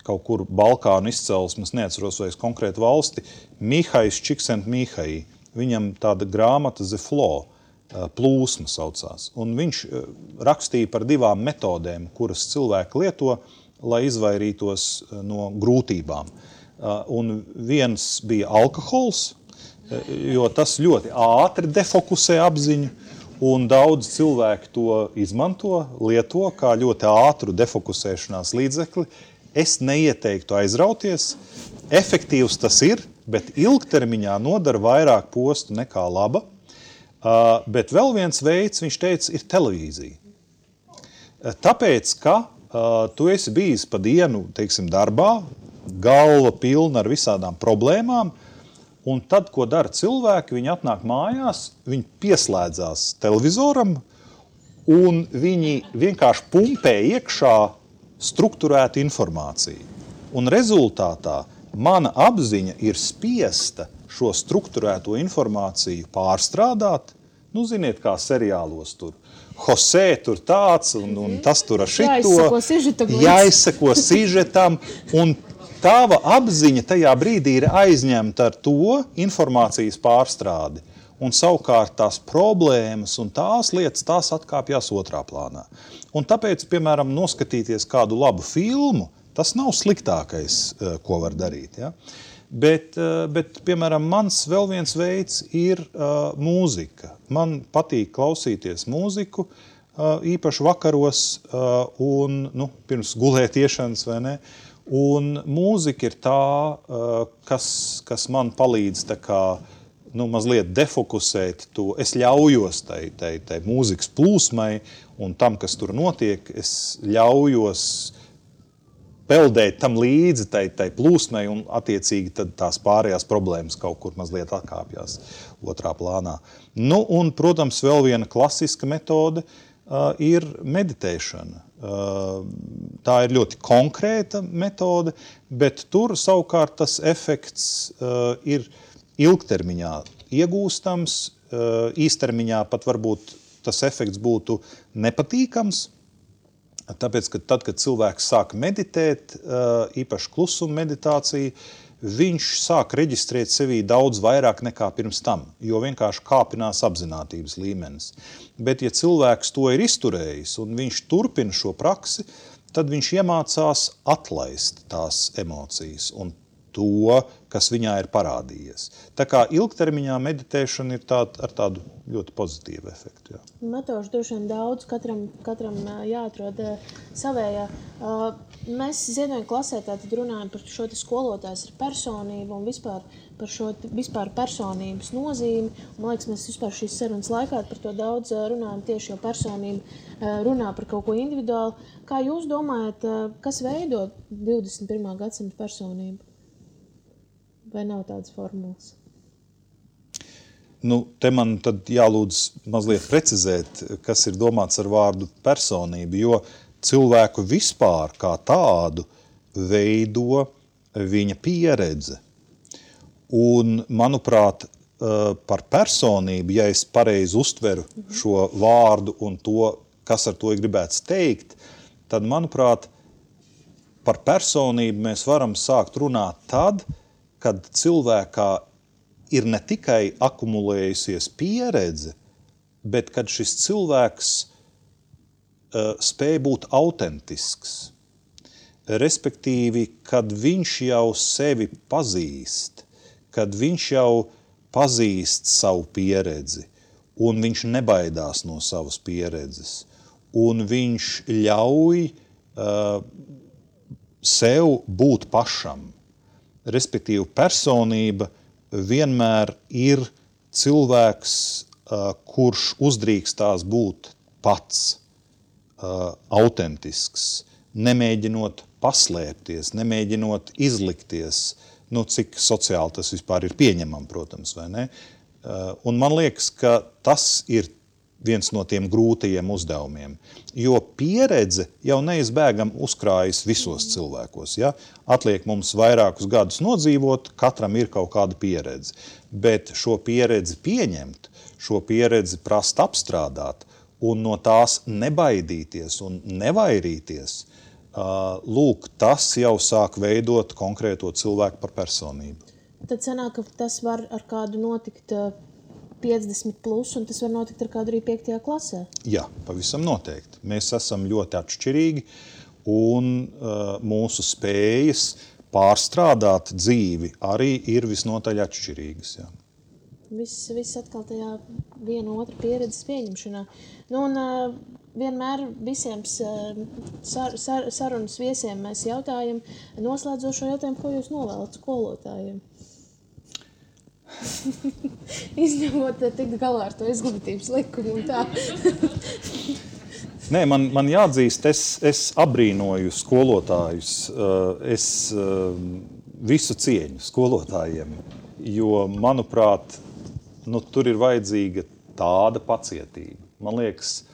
kaut kur Balkānu izcelsmes, neatceros vairs konkrētu valsti, Mihais Csikszentmihalyi. Viņam tāda grāmata The Flow, plūsma saucās. Un viņš rakstīja par divām metodēm, kuras cilvēki lieto, lai izvairītos no grūtībām. Un viens bija alkohols, jo tas ļoti ātri defokusē apziņu, un daudz cilvēku to izmanto, lieto kā ļoti ātru defokusēšanās līdzekli. Es neieteiktu aizrauties. Efektīvs tas ir, bet ilgtermiņā nodara vairāk postu nekā laba. Bet vēl viens veids, viņš teica, ir televīzija. Tāpēc, ka tu esi bijis pa dienu, teiksim, darbā, galva pilna ar visādām problēmām, un tad, ko dara cilvēki, viņi atnāk mājās, viņi pieslēdzās televizoram, un viņi vienkārši pumpē iekšā strukturētu informāciju. Un rezultātā mana apziņa ir spiesta šo strukturēto informāciju pārstrādāt. Nu, ziniet, kā seriālos tur. Jose tur tāds, un tas tur ar šito. Jāizseko sižetam, un tava apziņa tajā brīdī ir aizņemta ar to informācijas pārstrādi. un savukārt tās problēmas un tās lietas, tās atkāpjās otrā plānā. Un tāpēc, piemēram, noskatīties kādu labu filmu, tas nav sliktākais, ko var darīt. Ja? Bet, piemēram, mans vēl viens veids ir mūzika. Man patīk klausīties mūziku, īpaši vakaros un pirms gulētiešanas, vai ne? Un mūzika ir tā, kas man palīdz tā kā, mazliet defokusēt to. Es ļaujos tai mūzikas plūsmai un tam, kas tur notiek, es ļaujos peldēt tam līdzi tai plūsmai un attiecīgi tad tās pārējās problēmas kaut kur mazliet atkāpjās otrā plānā. Un, protams, vēl viena klasiska metode ir meditēšana. Tā ir ļoti konkrēta metode, bet tur savukārt tas efekts ir ilgtermiņā iegūstams, īstermiņā pat varbūt tas efekts būtu nepatīkams, tāpēc, ka tad, kad cilvēks sāk meditēt, īpaši klusuma meditācija, viņš sāk reģistrēt sevī daudz vairāk nekā pirms tam, jo vienkārši kāpinās apzinātības līmenis. Bet, ja cilvēks to ir izturējis un viņš turpina šo praksi, tad viņš iemācās atlaist tās emocijas un to, kas viņā ir parādījies. Tā kā ilgtermiņā meditēšana ir ar tādu ļoti pozitīvu efektu. Jā. Metožu droši vien daudz, katram jāatrod savējā. Mēs Ziedoņa klasē tātad runājam par šo skolotājs ar personību un vispār par šo personības nozīmi. Man liekas, mēs vispār šīs sarunas laikā par to daudz runājam tieši, jo personība runā par kaut ko individuālu. Kā jūs domājat, kas veido 21. gadsimta personību? Vai nav tādas formulas? Te man tad jālūdz mazliet precizēt, kas ir domāts ar vārdu personību, jo cilvēku vispār kā tādu veido viņa pieredze. Un, manuprāt, par personību, ja es pareizi uztveru šo vārdu un to, kas ar to ir gribēts teikt, tad, manuprāt, par personību mēs varam sākt runāt tad, kad cilvēkā ir ne tikai akumulējusies pieredze, bet kad šis cilvēks spēj būt autentisks. Respektīvi, kad viņš jau sevi pazīst, kad viņš jau pazīst savu pieredzi, un viņš nebaidās no savas pieredzes, un viņš ļauj sev būt pašam. Respektīvi, personība vienmēr ir cilvēks, kurš uzdrīkstās būt pats, autentisks, nemēģinot paslēpties, nemēģinot izlikties, cik sociāli tas vispār ir pieņemam, protams, vai ne? Un man liekas, ka tas ir viens no tiem grūtajiem uzdevumiem, jo pieredze jau neizbēgam uzkrājas visos cilvēkos. Ja? Atliek mums vairākus gadus nodzīvot, katram ir kaut kāda pieredze, bet šo pieredzi pieņemt, šo pieredzi prast apstrādāt un no tās nebaidīties un nevairīties, lūk, tas jau sāk veidot konkrēto cilvēku par personību. Tad sanāk, ka tas var ar kādu notikt 50 plus, un tas var notikt ar kādu arī 5. klasē? Jā, pavisam noteikti. Mēs esam ļoti atšķirīgi, un mūsu spējas pārstrādāt dzīvi arī ir visnotaļ atšķirīgas. Jā. Viss atkal tajā viena otra pieredzes pieņemšanā. Un vienmēr visiem sarunas viesiem mēs jautājam, noslēdzošo jautājumu, ko jūs novēlat skolotājiem? Izņemot tikt galā ar to izglītības likumu un tā. Nē, man jāatzīst, es abrīnoju skolotājus, es visu cieņu skolotājiem, jo, manuprāt, tur ir vajadzīga tāda pacietība. Man liekas,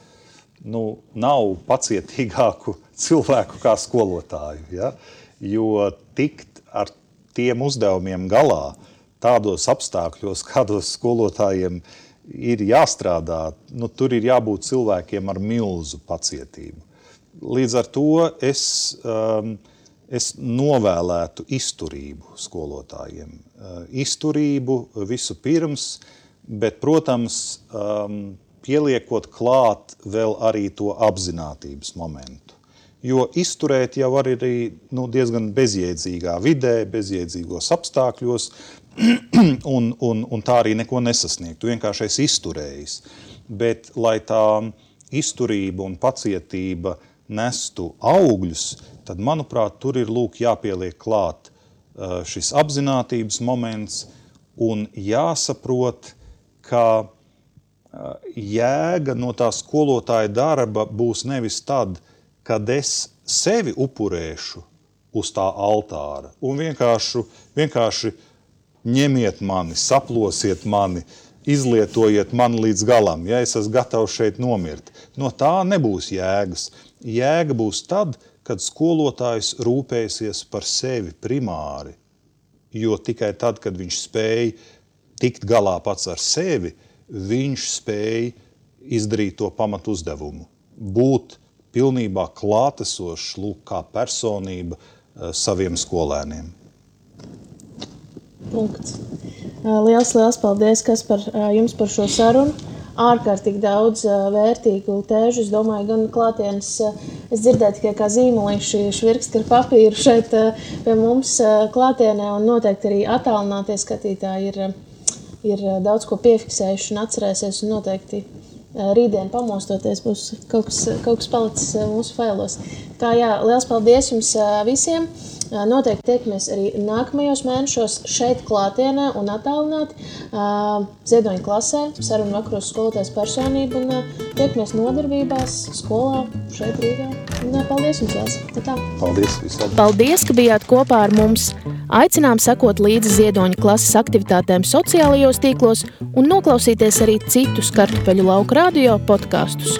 nav pacietīgāku cilvēku kā skolotāju, ja? Jo tikt ar tiem uzdevumiem galā, tādos apstākļos, kādos skolotājiem ir jāstrādā, tur ir jābūt cilvēkiem ar milzu pacietību. Līdz ar to es novēlētu izturību skolotājiem. Izturību visu pirms, bet, protams, pieliekot klāt vēl arī to apzinātības momentu. Jo izturēt jau var arī diezgan bezjēdzīgā vidē, bezjēdzīgos apstākļos, un tā arī neko nesasniegt. Tu vienkārši esi izturējis. Bet, lai tā izturība un pacietība nestu augļus, tad, manuprāt, tur ir jāpieliek klāt šis apzinātības moments un jāsaprot, ka jēga no tā skolotāja darba būs nevis tad, kad es sevi upurēšu uz tā altāra un vienkārši ņemiet mani, saplosiet mani, izlietojiet mani līdz galam, ja es esmu gatavs šeit nomirt. No tā nebūs jēgas. Jēga būs tad, kad skolotājs rūpēsies par sevi primāri, jo tikai tad, kad viņš spēj tikt galā pats ar sevi, viņš spēj izdarīt to pamatu uzdevumu. Būt pilnībā klātesošs, kā personība saviem skolēniem. Punkts. Liels paldies, Kaspar, jums par šo sarunu. Ārkārtīgi daudz vērtīgu tēžu. Es domāju, gan klātienes, es dzirdēju tikai kā zīmolīši švirksti ar papīru šeit pie mums klātienē, un noteikti arī attālinātie skatītāji ir daudz ko piefiksējuši un atcerēsies, un noteikti rītdien pamostoties būs kaut kas palicis mūsu failos. Tā jā, liels paldies jums visiem. Noteikti tiekamies arī nākamajos mēnešos šeit klātienē un attālināti Ziedoņa klasē, sarunu vakaros skolotājas personību, un tiekamies nodarbībās, skolā, šeit Rīgā. Un paldies jums vēl. Tā. Paldies visiem. Paldies, ka bijāt kopā ar mums. Aicinām sekot līdzi Ziedoņa klases aktivitātēm sociālajos tīklos un noklausīties arī citus Kartupeļu lauku radio podkastus.